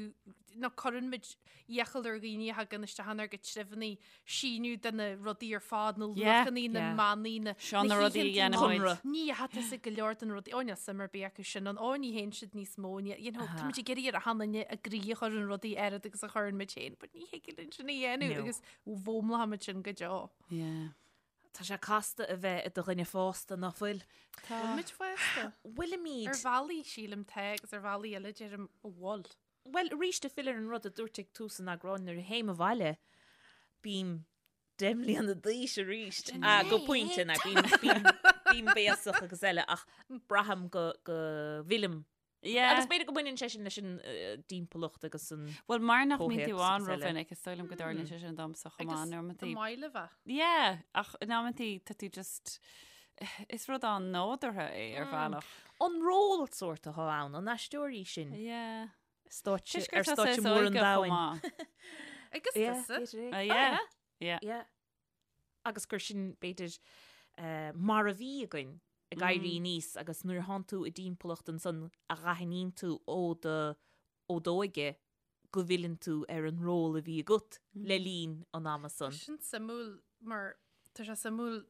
nó cuireann muid iachall ar dhaoine a thagann isteach inár gcuid treibheanna síniú de na rudaí ar fad, na Yeah. luachanna, na Yeah. manaí, na Seo na rudaí a dhéanann muid. Conradh. Ní fhathas ag go leor den rudaí, ó níl suim ar bith acu sin ann, ó ní théann siad níos mó, ní, you know, tá muid ag iarraidh ar achan duine a gcroí a chur in rudaí oiread agus a chuireann muid féin, but ní thig linn sin a dhéanamh No. agus foghlaimeoidh muid sin go deo. Yeah. Tá sé casta a bheith i do dhuine fásta, nach bhfuil? Tá. Bhfuil muid fásta? Bhfuilimid. Ar bhealaí, sílim, tá, agus ar bhealaí eile, deirim, an bhfuil. Bhuel, arís, ag filleadh ar an rud a dúirt ag tús an eagráin, nuair a théim abhaile, bím 10 mbliana d'aois arís. Ah, go pointe, na, bím, bím, bím béasach agus eile, ach braithim go, go bhfillim Yeah. Agus b'fhéidir go mbaineann sé sin leis an dtimpeallacht agus an Bhuel, mar nach mbíonn tú comhthéacs ann agus eile. rómhinic, is dóigh liom go dtarlaíonn sé sin domsa chomh maith in amantaí. An maith le bheith. Yeah, ach in amantaí tá tú just is rud an-nádúrtha é ar bhealach. An ról sórt atá ann, an aisteoirí sin. Yeah. Stáitse, Toisc gur ar tá stáitse saghas mór an óige chomh domhain. maith. Agus Yeah, tusa. b'fhéidir é. Ah, yeah. Yeah. Yeah. Agus gur sin, b'fhéidir, mar a bhí againn ag éirí aníos agus nuair a thánn tú i dtimpeallacht ansan a dh'aithníonn tú ó do, ó d'óige go bhfilleann tú ar an ról a bhí agat le linn an ama san. Sin suimiúil mar tá sé suimiúil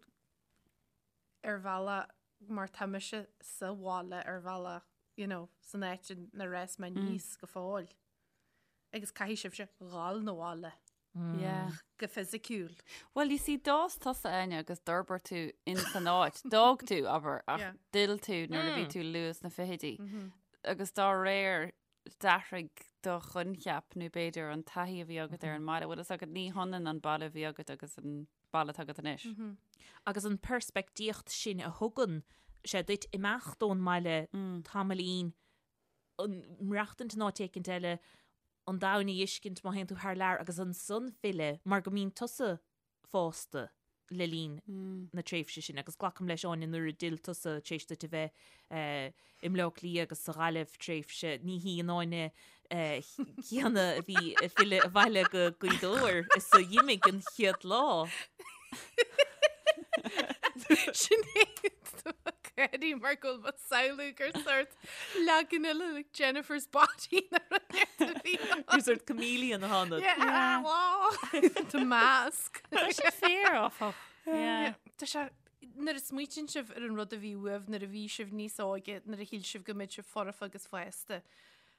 ar bhealach mar tá mise sa bhaile ar bhealach, you know, san áit inar fhás mé aníos go fóill. Agus caithfidh sibhse dhul 'na bhaile. Yeah. Go fisiciúil. Well, you see, d'fhás tusa, Áine, agus d'fhorbair tú in san áit. D'fhág tú, abair, ach Yeah. d'fhill tú nuair a bhí tú luath sna fichidí. Agus dá réir, d'athraigh do choincheap nó b'fhéidir an taithí a bhí agat ar an mbaile. Bhfuil fhios agat, ní hionann an baile a bhí agat agus an baile atá agat anois. Agus an peirspictíocht sin a thugann sé duit imeacht ón mbaile tamaillín, an maireachtaint in áit éicint eile, an domhan a fheiscint má théann tú thar lear agus ansan filleadh mar go mbíonn tusa fásta le linn na tréimhse sin agus glacaim leis Áine nuair a d'fhill tusa tar éis duit a bheith i mBleá Cliath agus sa Ghaillimh tréimhse ní hí an Áine chéanna a bhí ag filleadh abhaile go Gaoth Dobhair is a d'imigh an chéad lá. Sin é. gáirí mar go bhfuil mé ag samhlú gur sort leagan eile like Jennifer's Body nó rud éigin a bhí ann. Gur sort chameleon atá ionat. Yeah, wow. The mask. Tá sé fíor, áfach. Yeah. Tá sé nuair a smaoitíonn sibh ar an rud a bhí uaibh nuair a bhí sibh níos óige, nuair a shíl sibh go mbeadh sibh foirfe agus fásta.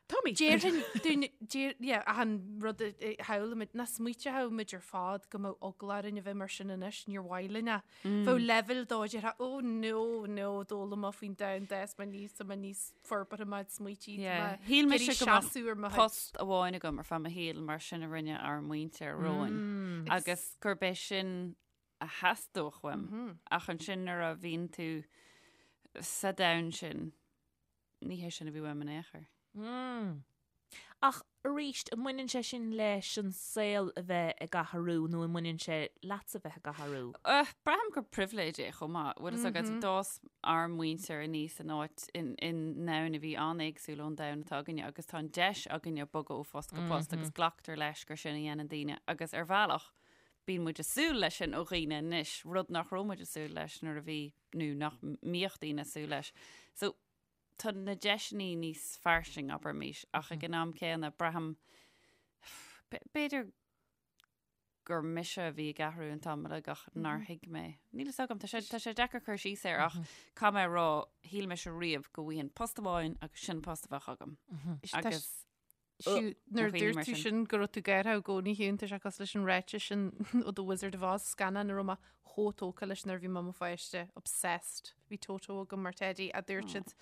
Táimid. Déarfainn, dúinn, déar, yeah, achan rud a a shamhlaímid, nach smaointeodh muid ar fad go mbeadh eagla orainn a bheith mar sin anois, níor mhaith linn é. Bheadh leibhéal dó, déarfá, oh no, no, d'fhoghlaim mé faoin domhan d'fhás mé aníos, tá mé níos forbartha mé smaoití, tá Yeah. mé Shíl mise ag iarraidh go mbeadh seasamh ar mo chuid. post amháin agam ar feadh mo shaoil mar sin a rinne ár muintir romhainn agus gurb é sin a theastódh uaim ach ansin nuair a bhíonn tú sa domhan sin, ní hé sin a bhí uaim in aon chor. Mm. Ach arís, an mbaineann sé sin leis an saol a bheith ag athrú nó an mbaineann sé leatsa bheith ag athrú? Braithim gur pribhléid é chomh maith. Bhfuil fhios agat, d'fhás ár muintir aníos in áit, in domhan a bhí an-éagsúil ón domhan atá againne agus tá an deis againne bogadh ó phost go post agus glactar leis gur sin a dhéanann daoine agus ar bhealach bíonn muid ag súil leis sin ó dhaoine anois, rud nach raibh muid ag súil leis nuair a bhí nó nach mbíodh daoine ag súil leis. So tá na deiseanna níos fairsing, abraimis, ach ag an am céanna braithim b'fhéidir gur mise a bhí ag athrú an t-am uilig ach nár thuig mé. Níl fhios agam, tá sé, tá sé deacair cur síos air ach caithfidh mé a rá, shíl mise riamh go bhfaighinn post amháin agus sin post a bheadh agam. Agus Siú, nuair a dhaoine dúirt mar tú sin. sin go raibh tú gártha i gcónaí Shiún, tá sé cosúil leis an ráiteas sin ó The Wizard of Oz, scannán a raibh mé chomh tógtha leis nuair a bhí mé i mo pháiste, obsessed. Bhí Toto agam mar teidí a dúirt siad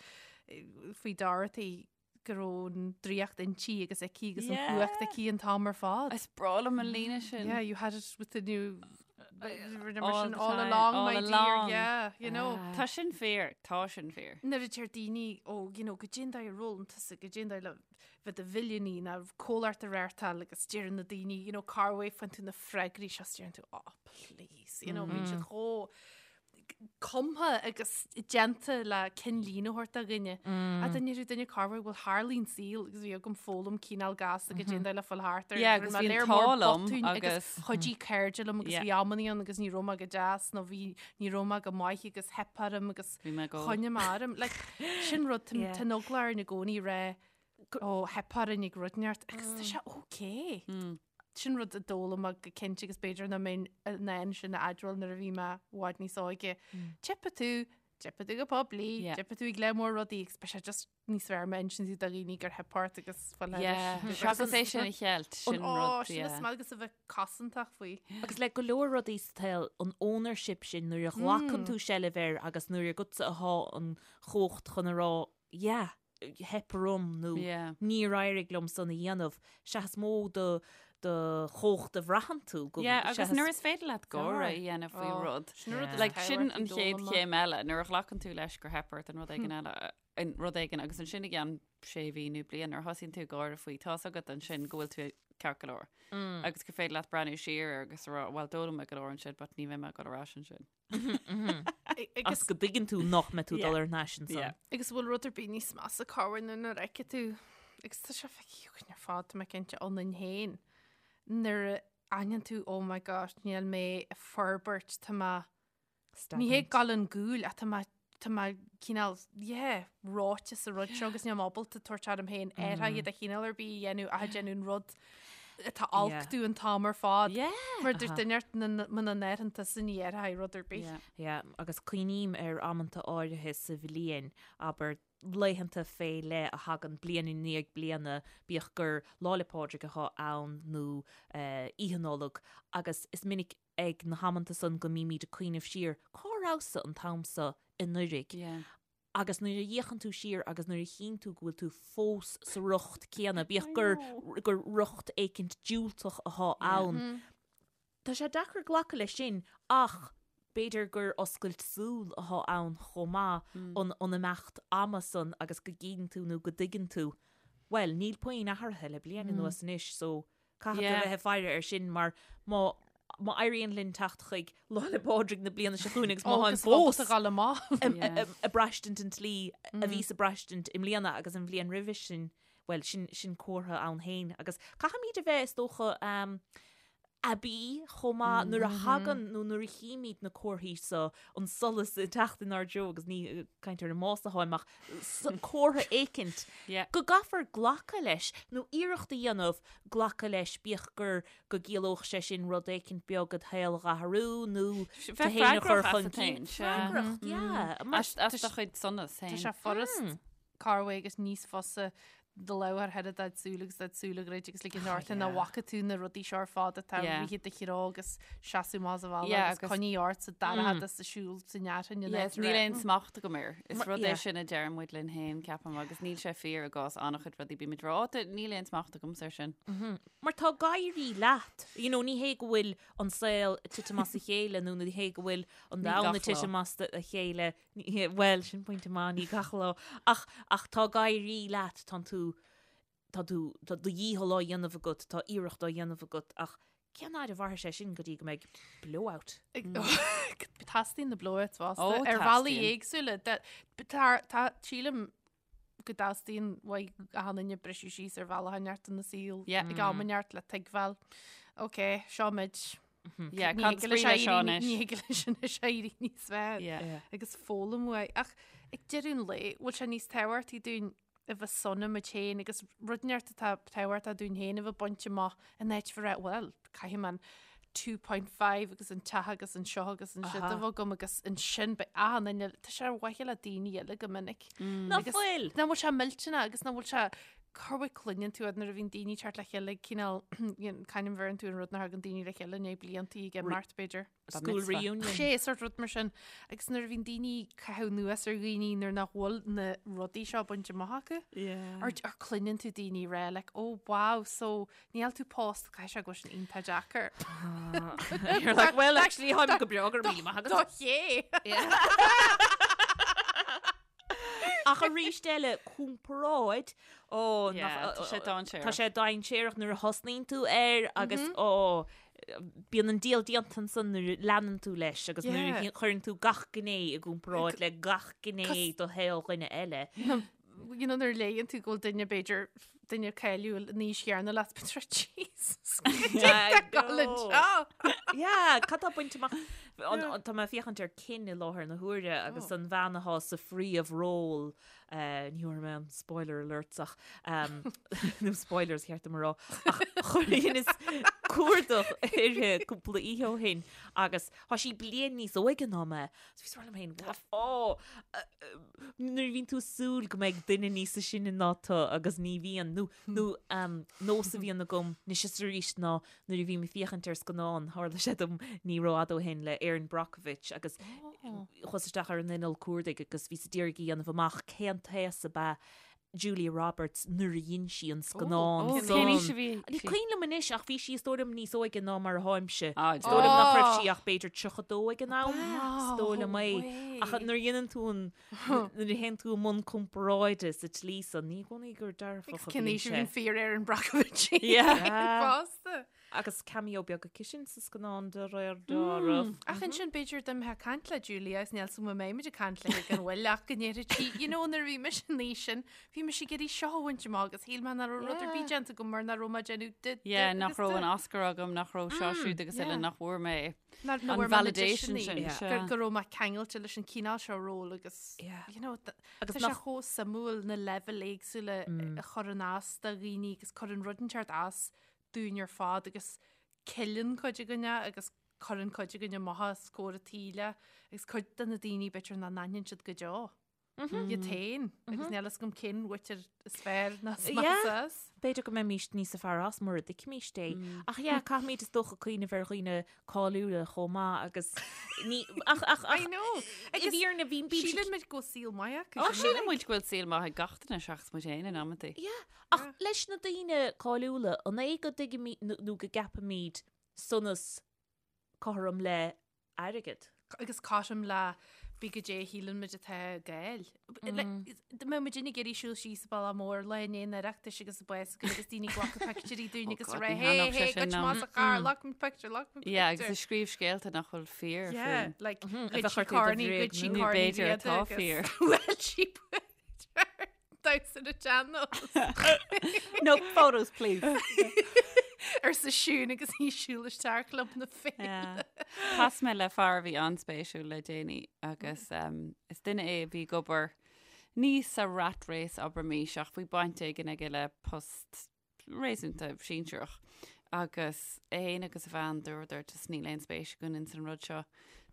eh, faoi Dorothy go raibh an draíocht inti agus aici agus an Yeah. chumhacht aici an t-am ar fad. Is breá liom an líne sin. Yeah, you had it within you All all, the all time, along, all my dear. along. Yeah, you know. Tá sin fíor, tá sin fíor. Nuair a deir daoine ó, you know, goidé an dóigh ar fhoghlaim tusa, goidé an dóigh le bheith i do mhilliúnaí nó comhlacht a reáchtáil agus deireann na daoine, you know, cá bhfuair tú na freagraí seo, deireann tú, oh, please, you know, bíonn siad chomh cumtha agus déanta le cinnlíne a thabhairt do dhuine. A duine rú duine cá bhfuair bhfuil tharlaíonn saol agus bhí agam foghlaim cineál gasta goidé an dóigh le fáil thart ar. Yeah, agus Rinne mé bhí an léir mór t-ádh liom botúin agus agus- chuidigh cairde liom agus Yeah. bhí amannaí ann agus ní raibh mé go deas nó bhí ní raibh mé go maith agus theip orm agus Bhí mé ag ól. choinnigh mé orm. Like, sin rud Yeah. tá an eagla orainn i gcónaí rá ó theip orainn ag rud inteacht agus tá sé okay. Sin rud a d'fhoghlaim mé go cinnte agus b'fhéidir nach mbeinn in ann sin a admháil nuair a bhí mé i bhfad níos óige. Teipfidh tú, teipfidh tú go poiblí, Yeah. teipfidh tú ag lear mór rudaí agus beidh sé just níos fearr má insíonn tú do dhaoine gur theip ort agus fáil Yeah, seachas é sin a cheilt, sin Ó, rud, sin is yeah. maith agus a bheith cosantach faoi. Agus le go leor rudaí sa tsaol, an ownership sin nuair a ghlacann tú seilbh air agus nuair agatsa atá an chumhacht chun a rá, yeah, theip orm nó Yeah. níor éirigh liom san a dhéanamh, sea is mó do do chumhacht a bhraitheann tú go Yeah, agus seachas- nuair is féidir leat gáire a dhéanamh faoi Ó, rud. Sin an rud is Like, sin tábhachtaí an chéad d'fhoghlaim mé. chéim eile, nuair a ghlacann tú leis gur theip ort an rud éigin eile, an rud éigin agus ansin i gceann sé mhí nó bliain nuair a thosaíonn tú ag gáire faoi, tá's agat ansin go bhfuil tú ceart go leor. Agus gur féidir leat breathnú siar air agus a rá, well d'fhoghlaim mé go leor ansin, but ní bheidh mé ag dul ar ais ansin. Agus go dtuigeann tú nach mbeidh tú dul ar ais ansan. Yeah. Agus bhfuil rud ar bith níos measa corruair ná nuair a fheiceann tú, agus tá sé feicthe againn ar fad, tá mé cinnte, ionainn féin, nuair a aithníonn tú, oh my gosh, níl mé ag forbairt, tá mé, ní hé ag dul chun cúil ach tá mé, tá mé cineál, yeah, reoite sa rud seo agus níl mé ábalta tabhairt orm féin athruithe de chineál ar bith a dhéanamh ach ag déanamh an rud atá olc domh an t-am ar fad. Yeah. Mar dúirt duine ort muna n-athraíonn tusa ní athróidh rud ar bith. Yeah. Yeah, agus cuimhním ar amanta áirithe sa bhliain, abair laethanta fé leith a thagann bliain i ndiaidh bliana, bíodh gur Lá 'le Pádraig atá ann nó Oíche Nollag, agus is minic ag na hamanta san go mbímid ag cuimhneamh siar, cá rabhas-sa an t-am so anuraidh? Yeah. Agus nuair a fhéachann tú siar agus nuair a chíonn tú go bhfuil tú fós sa riocht céanna, bíodh gur, gur riocht éicint diúltach atá ann, tá sé deacair glacadh leis sin ach b'fhéidir gur oscailt súl atá ann chomh maith, an, an imeacht ama san agus go gcíonn tú nó go dtuigeann tú, bhuel, níl puinn athraithe le bliain anuas anois so Caithfidh tú a bheith ag faire air sin mar má má éiríonn linn teacht chuig Lá 'le Pádraig na bliana seo chugainn agus má tháim fós ag braistint an tslí a bhíos ag braistint i mbliana agus an bhliain roimhe sin, bhuel, sin sin comhartha ann féin. Agus caithfimid a bheith, is dócha, aibí chomh maith nuair a thagann nó nuair a chímid na comharthaí so, an solas ag teacht inár dtreo agus ní ag caint ar an mbás atáim ach comhartha éicint go gcaithfear glacadh leis nó iarracht a dhéanamh glacadh leis bíodh gur go gciallódh sé sin rud éicint beag id shaol a dh'athrú nó tú féin a chur chun cinn. Freagracht, yeah. As do chuid sonas féin. Tá sé furast corruair agus níos fusa do lámh a chur thar do shúil agus do shúil a dhruid agus ligean ort nach bhfaca tú na rudaí seo ar fad atá ag rith i do threo agus seasamh amach sa bhaile agus coinnigh ort sa dara sa siúl sa nearthain in áit Níl aon smacht agam air. Is rud é sin a deir muid linn féin, ceapaim, agus níl sé fíor i gcás an-chuid rudaí. Bímid ag rá, níl aon smacht agam air sin. Mar tá ag éirí leat. You know, ní hé go bhfuil an saol ag titim as a chéile nó ní hé go bhfuil an domhan ag titim as a chéile Bhuel, sin pointe maith, ní gach lá. Ach, ach tá ag éirí leat, tá tú, tá tú, tá do dhícheall á dhéanamh agat, tá iarracht á dhéanamh agat, ach cén fhaid a mhairfidh sé sin go dtí go mbeidh blowout? Teastaíonn na blowouts fosta Ó, ar bhealaí teastaíonn. éagsúla. Tá, tá, sílim go dteastaíonn uaidh achan duine briseadh síos ar bhealach inteacht ina saol Yeah. ag am inteacht le tuigbheáil. Ok, seo muid. Yeah, Ní cad thig leis is brí leis seo éirí- anois? Ní thig leis anois éirí níos fearr. Yeah. Yeah. Agus foghlaim uaidh. Ach ag deireadh an lae, bhfuil sé níos tábhachtaí dúinn a bheith sona muid féin agus rud inteacht atá tábhachtach dúinn féin a bheith bainte amach in áit a bheith, bhuel, caithfidh mé an 2.5 agus an teach agus an seo agus an siúd a bheith agam agus ansin beidh achan duine, tá sé ar mhaithe le daoine eile go minic. Ná fuil! Nach bhfuil sé millteanach agus nach bhfuil sé corruair cluineann tú nuair a bhíonn daoine ag teacht le chéile cineál c'ainm a bheireann tú an rud nuair a thagann daoine le chéile i ndiaidh blianta ag imeacht b'fhéidir. School reunion. Sé sort rud mar sin. Agus nuair a bhíonn daoine ag caitheamh anuas ar dhaoine nuair nach bhfuil na rudaí seo bainte amach acu. Yeah. Or, or cluineann tú daoine ag rá like, oh wow, so níl tú pósta caithfidh sé go bhfuil sin iontach deacair. You're like, well, actually, táim go breá go raibh míle maith agat. Do ché! Ach arís eile, comparáid, ó, Yeah, tá sé dainséarach. Tá sé dainséarach nuair a thosnaíonn tú air agus ó, bíonn an diabhal déanta ansan nuair a leanann tú leis agus nuair a chuireann tú gach gné i gcomparáid le gach gné de shaol dhuine eile. You know, nuair a léann tú go bhfuil duine b'fhéidir duine cáiliúil in aois chéanna leat bíonn tú Jesus Yeah, cad tá bainte amach Tá mé ag féachaint ar Kin i láthair na huaire agus an bhean atá sa phríomhról ní thabharfaidh mé an spoiler alerts ach nó spoilers cheart dom a rá ach chuireas cuardach uirthi cúpla oíche ó shin agus tá sí bliain níos óige ná mé. So bhíos ag rá liom féin, what? Ó, nuair a bhíonn tú ag súil go mbeidh duine níos sine ná tú agus ní bhíonn, nó, nó um, nós a bhíonn agam anois is arís ná nuair a bhím ag féachaint ar scannán, tharla sé dom ní rófhada ó shin le Erin Brockovich agus chuas isteach ar an inneall cuardaigh agus bhíos ag iarraidh a dhéanamh amach cén t-aos ab ea Julia Roberts nuair a dhein sí an scannán Ó, san. cén aois a bhí Ní sí? cuimhin liom anois ach bhí sí is dóigh liom níos óige ná mar atáimse. Ah, Is dóigh liom nach raibh Oh. sí ach b'fhéidir 32 ag an am, is dóigh liom é. Ach nuair a dhéanann tú an, nuair a théann tú i mbun comparáide sa tslí san, ní i gcónaí gur dearfach a Cén bhíonn aois a sé. bhí an fíor Erin Brockovich Yeah. fosta. Agus cameo beag aici sin sa scannán de réir dealraimh. Ach ansin b'fhéidir dá mbeifeá ag caint le Julia agus níl 's agam an mbeidh muid ag caint léi gan mhoill ach go ndéarfadh sí, you know nuair a bhí mise an aois sin, bhí mise ag iarraidh seo a bhaint amach agus shíl mé nach raibh rud ar bith déanta agam mar nach raibh mé ag déanamh de, de Yeah, nach agus raibh de. an Oscar agam, nach raibh seo siúd agus eile, yeah. nach bhfuair mé Nach an bhfuair mé na validation deiseanna sin. Yeah. sea. gur, go raibh mé ceangailte leis an cineál seo ról agus, Yeah. you know, th- Agus tá sé nach- chomh suimiúil na leibhéil éagsúla a chuireann as do dhaoine agus cuireann rud inteacht as dúinn ar fad agus ceileann cuid againne agus cuireann cuid againne amach os comhair an tsaoil agus cuid de na daoine b'fhéidir nach n-aithníonn siad go deo. Iad féin agus níl fhios agam cén mhuintir is fearr ná is measa as. B'fhéidir go mbeimís níos fearr as mura dtuigfimís é. Ach yeah, caithfimid is dócha cuimhneamh ar dhaoine cáiliúla chomh maith agus ní ach ach ach I know. i bhfírinne bhí bímse Síleann muid go bhfuil saol maith acu. Ó, síleann muid go bhfuil saol maith ag gach duine seachas muid féin in amantaí. Yeah, ach leis na daoine cáiliúla, an é go dtuigimid nó go gceapaimid sonas cothrom le airgead? Agus cothrom le bí goidé a shíleann muid atá ag fáil. Dá mbeadh muid ag iarraidh siúl síos an bealach mór lá i ndiaidh an Oireachtais agus an bás againn agus daoine ag glacadh pictiúirí dúinn agus God, rá ní hé thaitneodh hé sé sin goid liom. más a char glac muid pictiúr glac muid Yeah, agus pictiúr. ag scríobh scéalta nach bhfuil fíor Yeah, faoin. like a ghoid bheith sí orthu do cornaí, bhréag ghoid sí nó cornaí b'fhéidir riada atá agus fíor. bhuail sí damhsa na sean-nós. No photos, please. Arsa Siún agus í ag siúl isteach Club na Féile. Chas mé le fear a bhí an-spéisiúil le déanaí agus is duine é a bhí ag obair ní sa rat race abraimis ach bhí baint éigin aige le post réasúnta sinsearach agus é féin agus a bhean dúradar just níl aon spéis againn ins an rud seo.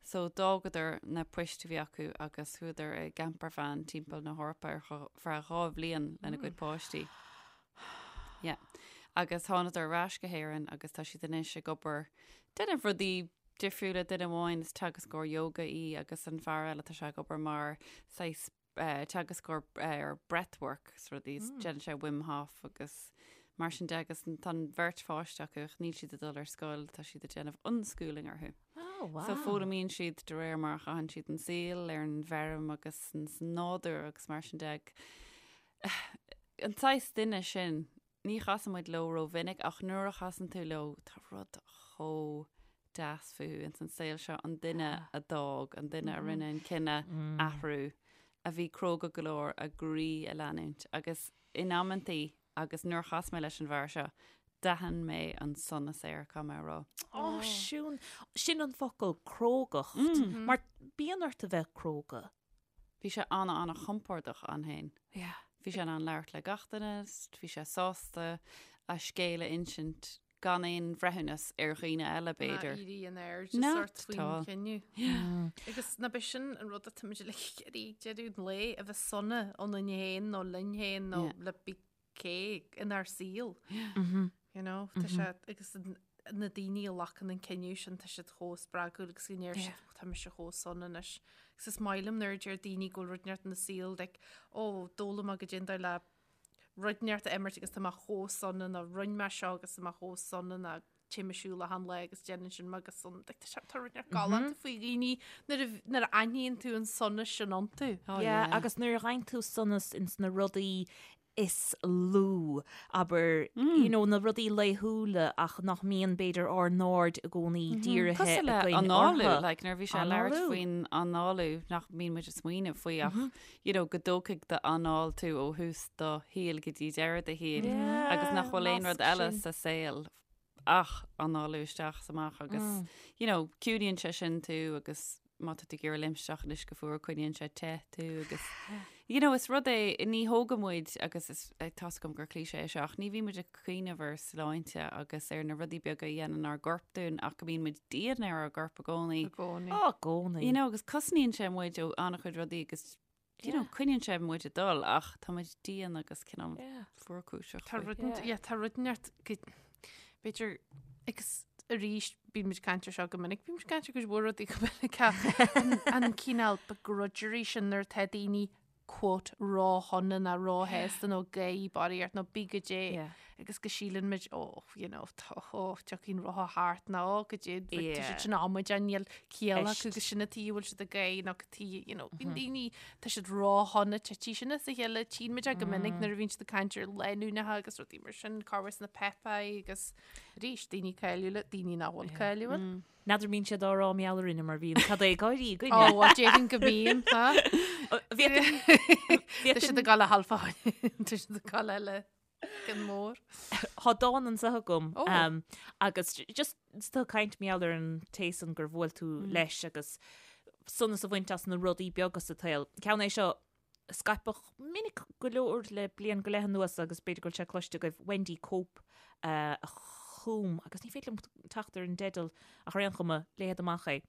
So d'fhágadar na poist a bhí acu agus chuadar i gcampervan timpeall na hEorpa ar feadh 2 bhliain lena gcuid páistí. Yeah. Agus thánadar ar ais go hÉirinn agus tá siad anois ag obair déanamh rudaí difriúla duine amháin is teagascóir yoga í agus an fear eile tá sé ag obair mar saghas teagascóir ar breathwork is rudaí, is déanann sé Wim Hof agus mar sin de agus tá an bheirt pháiste acu ach níl siad ag dul ar scoil, tá siad ag déanamh unschooling orthu. Oh, wow. So foghlaimíonn siad de réir mar a chaitheann siad an saol ar an bhfeirm agus sa nádúr agus mar sin de. An saghas duine sin, Ní chasann muid leo rómhinic ach nuair a chasann tú leo tá rud chomh deas fúthu ins an saol seo, an duine a d'fhág, an duine a rinne an cinneadh athrú, a bhí cróga go leor a gcroí a leanúint agus in amantaí agus nuair a chas mé leis an bhfear seo, d'aithin mé an sonas air, caithfidh mé a rá. Ó, Siún, sin an focal, crógacht. Mar bíonn ort a bheith cróga. Bhí sé ana-ana-chompordach ann féin. Yeah. Bhí sé in ann labhairt le gach duine, bhí sé sásta a scéal a insint gan aon bhreithiúnas ar dhaoine eile, b'fhéidir. Ná éirí in airde sort faoin chinneadh. Agus ná b'é sin an rud atá muid uilig ag iarraidh ag deireadh an lae, a bheith sona ionainn féin nó linn féin nó le bí cé inár saol. You know, tá sé agus na daoine a ghlacann an cinneadh sin tá siad chomh spreagúil agus go ndeir siad "Ó, tá mise chomh sona anois. Agus is maith liom nuair a deir daoine go bhfuil rud inteacht ina saol like, ó d'fhoghlaim mé goidé an dóigh le rud inteacht a imirt agus tá mé chomh sona nó rinne mé seo agus tá mé chomh sona nó téim ag siúl achan lá agus déanann sin mé go sona. Like, tá sé- tá rud inteacht galánta faoi dhaoine nuair a nuair a aithníonn tú an sonas sin iontu. Oh, Yeah, yeah. agus nuair a fhaigheann tú sonas ins na rudaí is lú, abair, you know, na rudaí laethúla ach nach mbíonn, b'fhéidir, ár n-aird i gcónaí dírithe Cosúil le againn análú, orthu. like, nuair a bhí sé ag labhairt Análú. faoin análú nach mbíonn muid ag smaoineamh faoi ach, you know, go dtógfaidh d'anáil tú ó thús do shaoil go dtí deireadh do shaoil agus nach bhfuil aon rud nasc eile sin. sa saol ach análú isteach is amach agus, you know, ciúnaíonn sé sin tú agus má tá tú ag iarraidh léimt isteach in uisce fuar coinníonn sé te tú agus, you know, is rud é, ní thógann muid agus is, tá's agam gur cliché é seo ach ní bhíonn muid ag cuimhneamh ar sláinte agus ar na rudaí beaga a dhéanann ár gcorp dúinn ach go mbíonn muid dian ar ár gcorp i gcónaí. I gcónaí. Á, i gcónaí. You know, agus cosnaíonn sé muid ó an-chuid rudaí agus you know, coinníonn sé muid ag dul ach tá muid dian agus cineál fuarchúiseach. Tá rud yeah, tá rud inteacht go b'fhéidir agus arís bíonn muid ag caint ar seo go minic, bíonn muid ag caint ar cuid mhór rudaí go minic ach an, an cineál begrudgery sin nuair atá daoine quote róshona nó róshásta nó gáirí barraíocht nó bí goidé Yeah. agus go síleann muid oh, you know, tá oh, tiocfaidh an rotha thart nó oh, goidé tá Yeah. siad sin amaideach níl ciall acu Eist. agus sin an tuige a bhfuil siad ag gáire nó cad tuige, you know, bíonn daoine, tá siad róshona titfidh sin as a chéile, tchíonn muid é go minic nuair a bhíonn siad ag caint ar lánúineacha agus rudaí mar sin, cá bhfuil na Pepai agus arís daoine cáiliúla, daoine nach bhfuil cáiliúil. N'fheadar mbíonn siad á rá mar gheall orainne mar bhíonn cad é ag gáirí againne. Ó, well, déarfainn go mbíonn, ha? Bhí Tá siad ag gabháil a halfa, tá siad ag gabháil eile. Cinn mór. Tá dán anseo agam Ó. um, agus just tá caint mar gheall ar an té san gur bhuail tú leis agus sonas a bhaint as na rudaí beaga sa tsaol. Ceann é seo a scaipeadh minic go leor le bliain go leith anuas agus b'fhéidir go bhfuil sé cloiste agaibh Wendy Cope uh, a chum agus ní féidir liom teacht ar an dteideal ach ar aon chuma léifead amach é.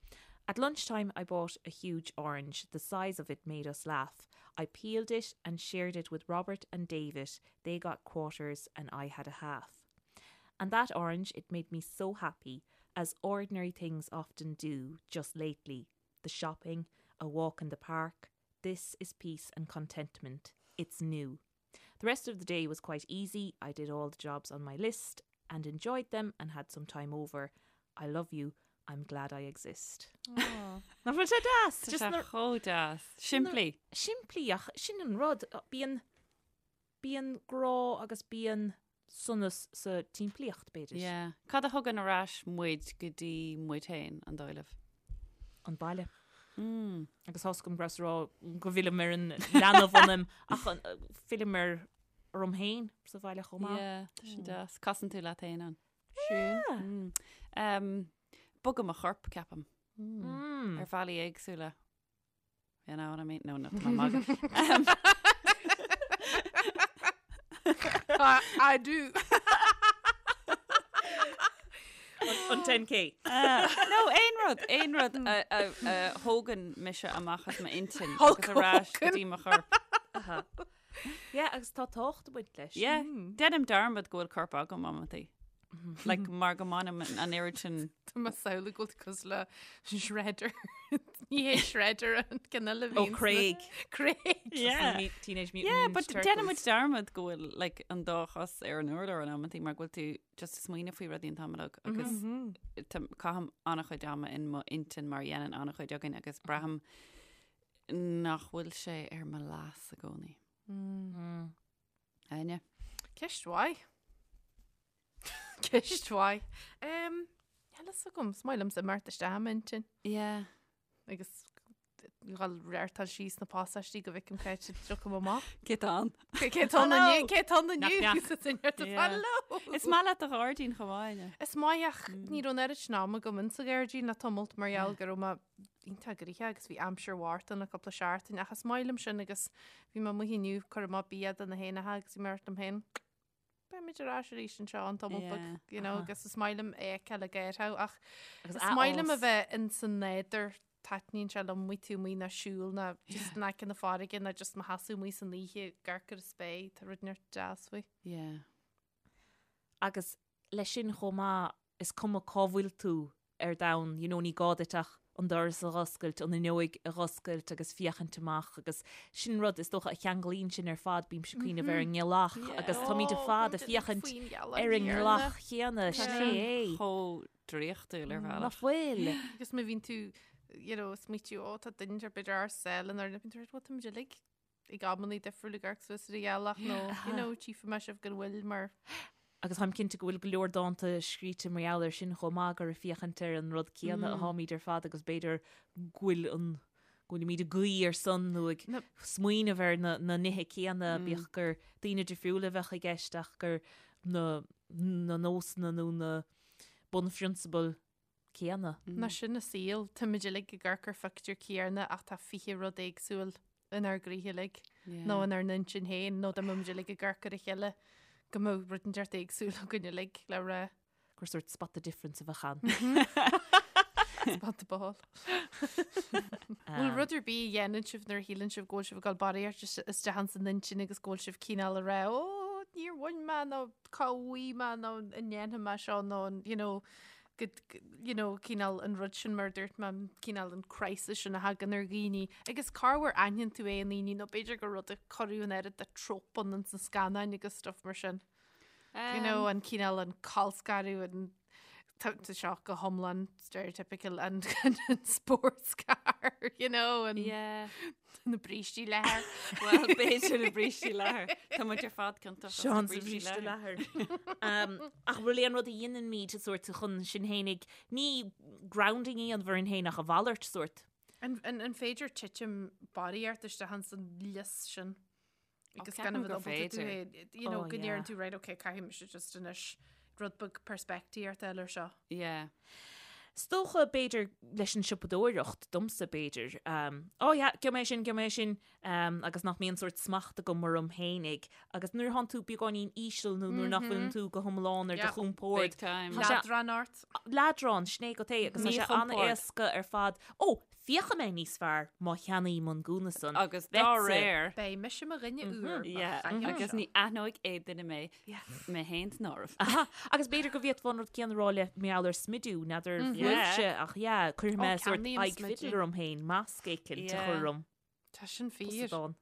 At lunchtime I bought a huge orange. The size of it made us laugh. I peeled it and shared it with Robert and David. They got quarters and I had a half. And that orange, it made me so happy, as ordinary things often do just lately. The shopping, a walk in the park, this is peace and contentment. It's new. The rest of the day was quite easy. I did all the jobs on my list and enjoyed them and had some time over. I love you. I'm glad I exist. Nach bhfuil sé deas? Tá Just sé na- chomh deas. Simplí. Simplí ach sin an rud bíonn bíonn grá agus bíonn sonas sa tsimplíocht b'fhéidir. Yeah. Cad a thugann ar ais muid go dtí muid féin, an dóigh libh? An baile. Mm. Agus tá's agam go rabhas ag rá go bhfillim ar an leanbh ionam ach an- fillim ar orm féin sa bhaile chomh maith. Yeah, tá sin deas. Casann tú leat féin ann. Siún. Mm. Bogadh mo chorp, ceapaim. Mm. Ar bhealaí éagsúla. You know what I mean? No, no, tá mé ag magadh. I do. An 10K. No, aon rud, aon rud a, a, a thógann mise amach as m'intinn agus ar ais go dtí mo chorp. Yeah, agus tá tábhacht ag baint leis. Yeah, déanaim dearmad go bhfuil corp agam amantaí. Like, mar go mbainim an oiread sin. Tá mé ag samhlú go bhfuil tú cosúil le Shredder. Ní hé Shredder an ceann eile a Ó, bhíonn Craig. Craig. Yeah. Teenage Mutant Yeah, Ninja but Turtles. déanaim muid dearmad go bhfuil like, an dá chos ar an urlár in amantaí mar go bhfuil tú just ag smaoineamh faoi rudaí an t-am uilig agus tá- caithim an-chuid ama in mo intinn mar a dhéanann an-chuid againn agus braithim nach bhfuil sé ar mo leas i gcónaí. Áine? Ceist mhaith. Ceist mhaith. Um, Níl a fhios agam, is maith liomsa imeacht isteach i m'intinn. Yeah. Agus dhul reáchtáil síos na pasáistí go bhfeicim cá háit a dtiocfaim amach. Cé tá ann? Cé tá ann inniu? Cé tá ann inniu? Knock, knock. Yeah. Hello! Is maith leat do ghairdín chomh maith, Áine. Is maith ach ní raibh an oiread sin ama agam insa ghairdín le tamalt mar gheall go raibh mé iontach gnoitheach agus bhí aimsir mharbh ann le cúpla seachtain ach is maith liom sin agus bhí mé amuigh inniu ag cur amach bia do na héanacha agus bhí mé ag rá liom féin beimid ar ais arís anseo i dtamall beag Yeah. you know, agus is maith liom é a fheiceáil ag éirí ach Agus is maith liom a athfhás. bheith in san nádúr taitníonn sé liom amuigh tú amuigh ná siúl ná just in aice na farraige ná just mo sheasamh amuigh san oíche ag amharc ar an spéir tá rud inteacht deas faoi. Yeah. Agus leis sin chomh maith, is cuma cá bhfuil tú ar domhan, you know, ní gá duit ach an doras a dh'oscailt, an fhuinneoig a dh'oscailt agus féachaint amach agus sin rud is dócha a cheanglaíonn sinn ar fad, bímse ag cuimhneamh ar an ngealach agus táimid ar fad ag féachaint ar an ngealach chéanna, sin é é. Chomh draíochtúil ar bhealach. Nach bhfuil? Agus má bhíonn tú, you know, ag smaoitiú, ó tá duine ar bith ar saol in ar bíonn tú, bhuel táimid uilig ag amannaí difriúla ag amharc suas ar an ghealach nó, you know, tchífidh mé sibh gan mhoill mar. Agus táim cinnte go bhfuil go leor dánta scríte mar gheall air sin chomh maith, gur ag féachaint ar an rud céanna atáimid ar fad agus b'fhéidir go bhfuil an, go bhfuilimid ag guí ar son nó ag smaoineamh ar na, na nithe céanna, bíodh gur daoine difriúla a bheadh i gceist ach gur na, na nósanna nó na bunphrionsabail céanna. Nó sin an saol, táimid uilig ag amharc ar phictiúr céanna ach tá 20 rud éagsúil inár gcroíthe uilig, nó inár n-intinn féin, nó dá mbeadh muid uilig ag amharc ar a chéile go mbeadh rud inteacht éagsúil againn uilig le rá. Gur sórt spot the difference a bheadh ann. Spot the ball. Bhfuil rud ar bith a dhéanann sibh nuair a shíleann sibh go bhfuil sibh ag dul barraíocht isteach ins an intinn agus go bhfuil sibh cineál ag rá, ó, níor bhain mé nó cá bhfaighidh mé nó an ndéanfaidh mé seo nó an, you know, go, you know, cineál an rud sin mar a dúirt mé, cineál an crisis sin a thagann ar dhaoine. Agus corruair aithníonn tú é i ndaoine nó b'fhéidir gur rud a cuireadh an oiread de trope ann ins na scannáin agus stuff mar sin. You know, an cineál an colscaradh an tá tá seo go hiomlán stereotypical an an sports car, you know, an Yeah. na brístí leathair. Well, b'fhéidir na brístí leathair. Tá muid ar fad ciontach as na Seán sa brístí bhríste leathair. leathair. Um, ach bhfuil aon rud a dhéanaimid sórt chun sinn fhéinig, ní grounding a dhéanamh orainn féin ach a mhalairt sórt. An, an, an féidir titim barraíocht isteach ins an lios sin? Agus gan ceapaim a bheith gur ábalta tú féidir. é, you know, Oh, go ndeireann yeah. tú, right, okay, caithfidh mise just anois rud beag peirspictíocht a fháil ar seo. Yeah. Is dócha, b'fhéidir, leis an siopadóireacht, domsa, b'fhéidir, um, oh yeah, gheobhaidh mé sin, gheobhaidh mé sin, um, agus nach mbíonn sórt smacht agam orm fhéinig. Agus nuair atánn tú beagáinín íseal nó nuair nach bhfuileann tú go hiomlán ar do Yeah. chompord, Big time. Tá sé- Leadrán ort. leadrán, sin é go é, agus tá sé Míchompord. an-éasca ar fad. Ó, féachfaidh mé níos fearr má cheannaím an gúna san. Agus dá Beidh-sa. réir. Beidh mise mo dhuine úr. Yeah, agus ní aithneoidh aon duine mé, mé féin san áireamh. Aha, agus b'fhéidir go bhféadfá an rud céanna a rá le mar gheall ar smidiú, n'fheadar bhfuilse, ach yeah, cuirfidh mé Ó, sórt ceannaím aghaidh smidiú. fidil orm féin, masc éicint a Yeah. chur orm. Tá sin fíor. Posadán.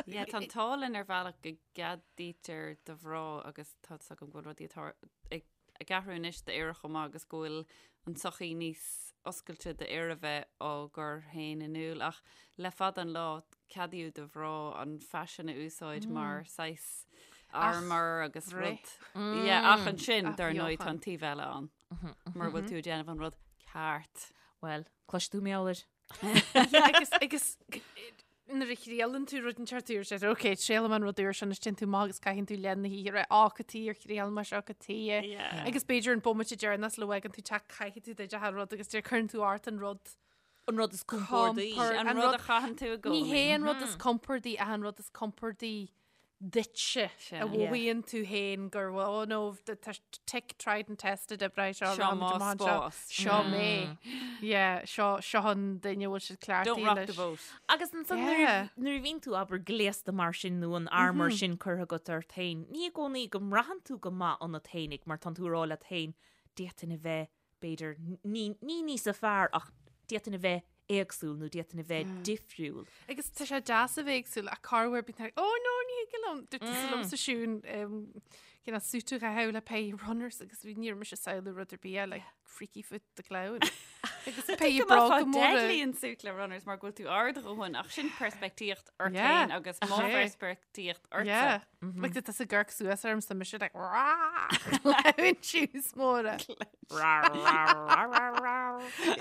Yeah, tá an t-ádh linn ar bhealach go gceadaítear do mhná agus tá fhios agam go bhfuil rudaí atá ag ag athrú anois d'fhir chomh maith agus go bhfuil an tsochaí níos oscailte d'fhir a bheith á gcur féin in iúl ach le fada an lá ceadaíodh do mhná an faisean a úsáid mar saghas armor agus rud. Yeah, ach ansin dar ndóigh tá an taobh eile ann mura bhfuil tú ag déanamh an rud ceart. Bhuel, cloisfidh tú mé air. Yeah, agus agus. nuair a thriaileann tú rud inteacht úr, sé, ok, triailfidh mé an rud úr seo anois téann tú amach agus caitheann tú leath na hoíche rá, á, cad chuige ar thriail mé seo, cad chuige. Yeah. Agus b'fhéidir an bomaite deireanach sula bhfágann tú teach caithfidh tú duit a rud agus deir cuireann tú ort an rud. An rud is compordaí. Compor- An rud a chaitheann tú i gcónaí. Ní hé an rud is compordaí ach an rud is compordaí duitse Sin. a mhothaíonn tú féin gur oh no tá tick tried and tested oibre seo Seo mo spás. Seo mé. Yeah, seo seo an duine a bhfuil siad cleachtaithe Don't rock the leis. boat. Agus ansan nuair Yeah. nuair a bhíonn tú abair gléasta mar sin nó an armor sin curtha agat ort féin, ní i gcónaí go mbraitheann tú go maith ionat féinig mar tánn tú ag rá leat féin d'fhéadfainn a bheith b'fhéidir, ní ní níosa fearr ach d'fhéadfainn a bheith éagsúil nó d'fhéadfainn a bheith difriúil. Agus tá sé deas a bheith éagsúil ach corruair bíonn tú like, oh no, ní thig liom. Dúirt tusa liomsa Siún, cineál suit a chaitheamh le péire runners agus bhí ní raibh mise ag samhlú rud ar bith eile, like Freaky Foot the Clown. Agus péire bróga móra. Deadly an suit le runners mar go bhfuil tú ard a dhóthain ach sin peirspictíocht ort Yeah. féin agus mo Sea. pheirspictíocht ortsa. Yeah. Like tá tusa ag amharc suas orm so mise like rah! Clown shoes móra.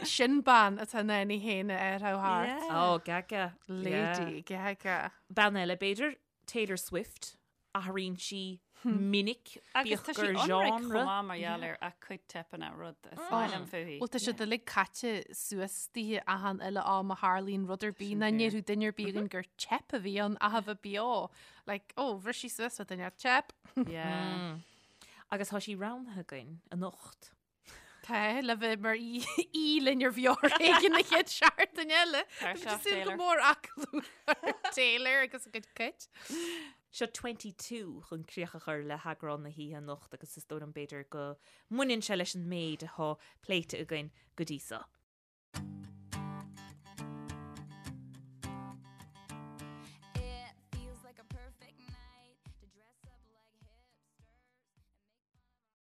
Sin bean atá in ann í féin a athrú thart. Yeah. Oh, Gaga. Lady Gaga. Bean eile, b'fhéidir, Taylor Swift, athraíonn sí minic, Agus bíodh tá sí gur ionraic genre. chomh maith mar gheall ar a cuid teipeanna rud is maith liom fúithi. Bhuel tá siad uilig caite suas daoithe achan uile am a tharlaíonn rud ar bith ná ndéarfadh duine ar bith againn gur teip a bhí ann ach a bheith beo. Like, oh, bhris sí suas le duine, teip. Yeah. Agus tá sí roghnaithe againn anocht. Tá, le bheith mar aoi linn ar Bheo ar Éigean na chéad seachtain eile. Tá Tá seo, súil go Taylor. mór aclú ar Taylor agus a cuid cait. Seo 22 chun críoch a chur le heagrán na hoíche anocht agus is dóigh liom b'fhéidir go mbaineann sé leis an méid atá pléite againn go dtí seo.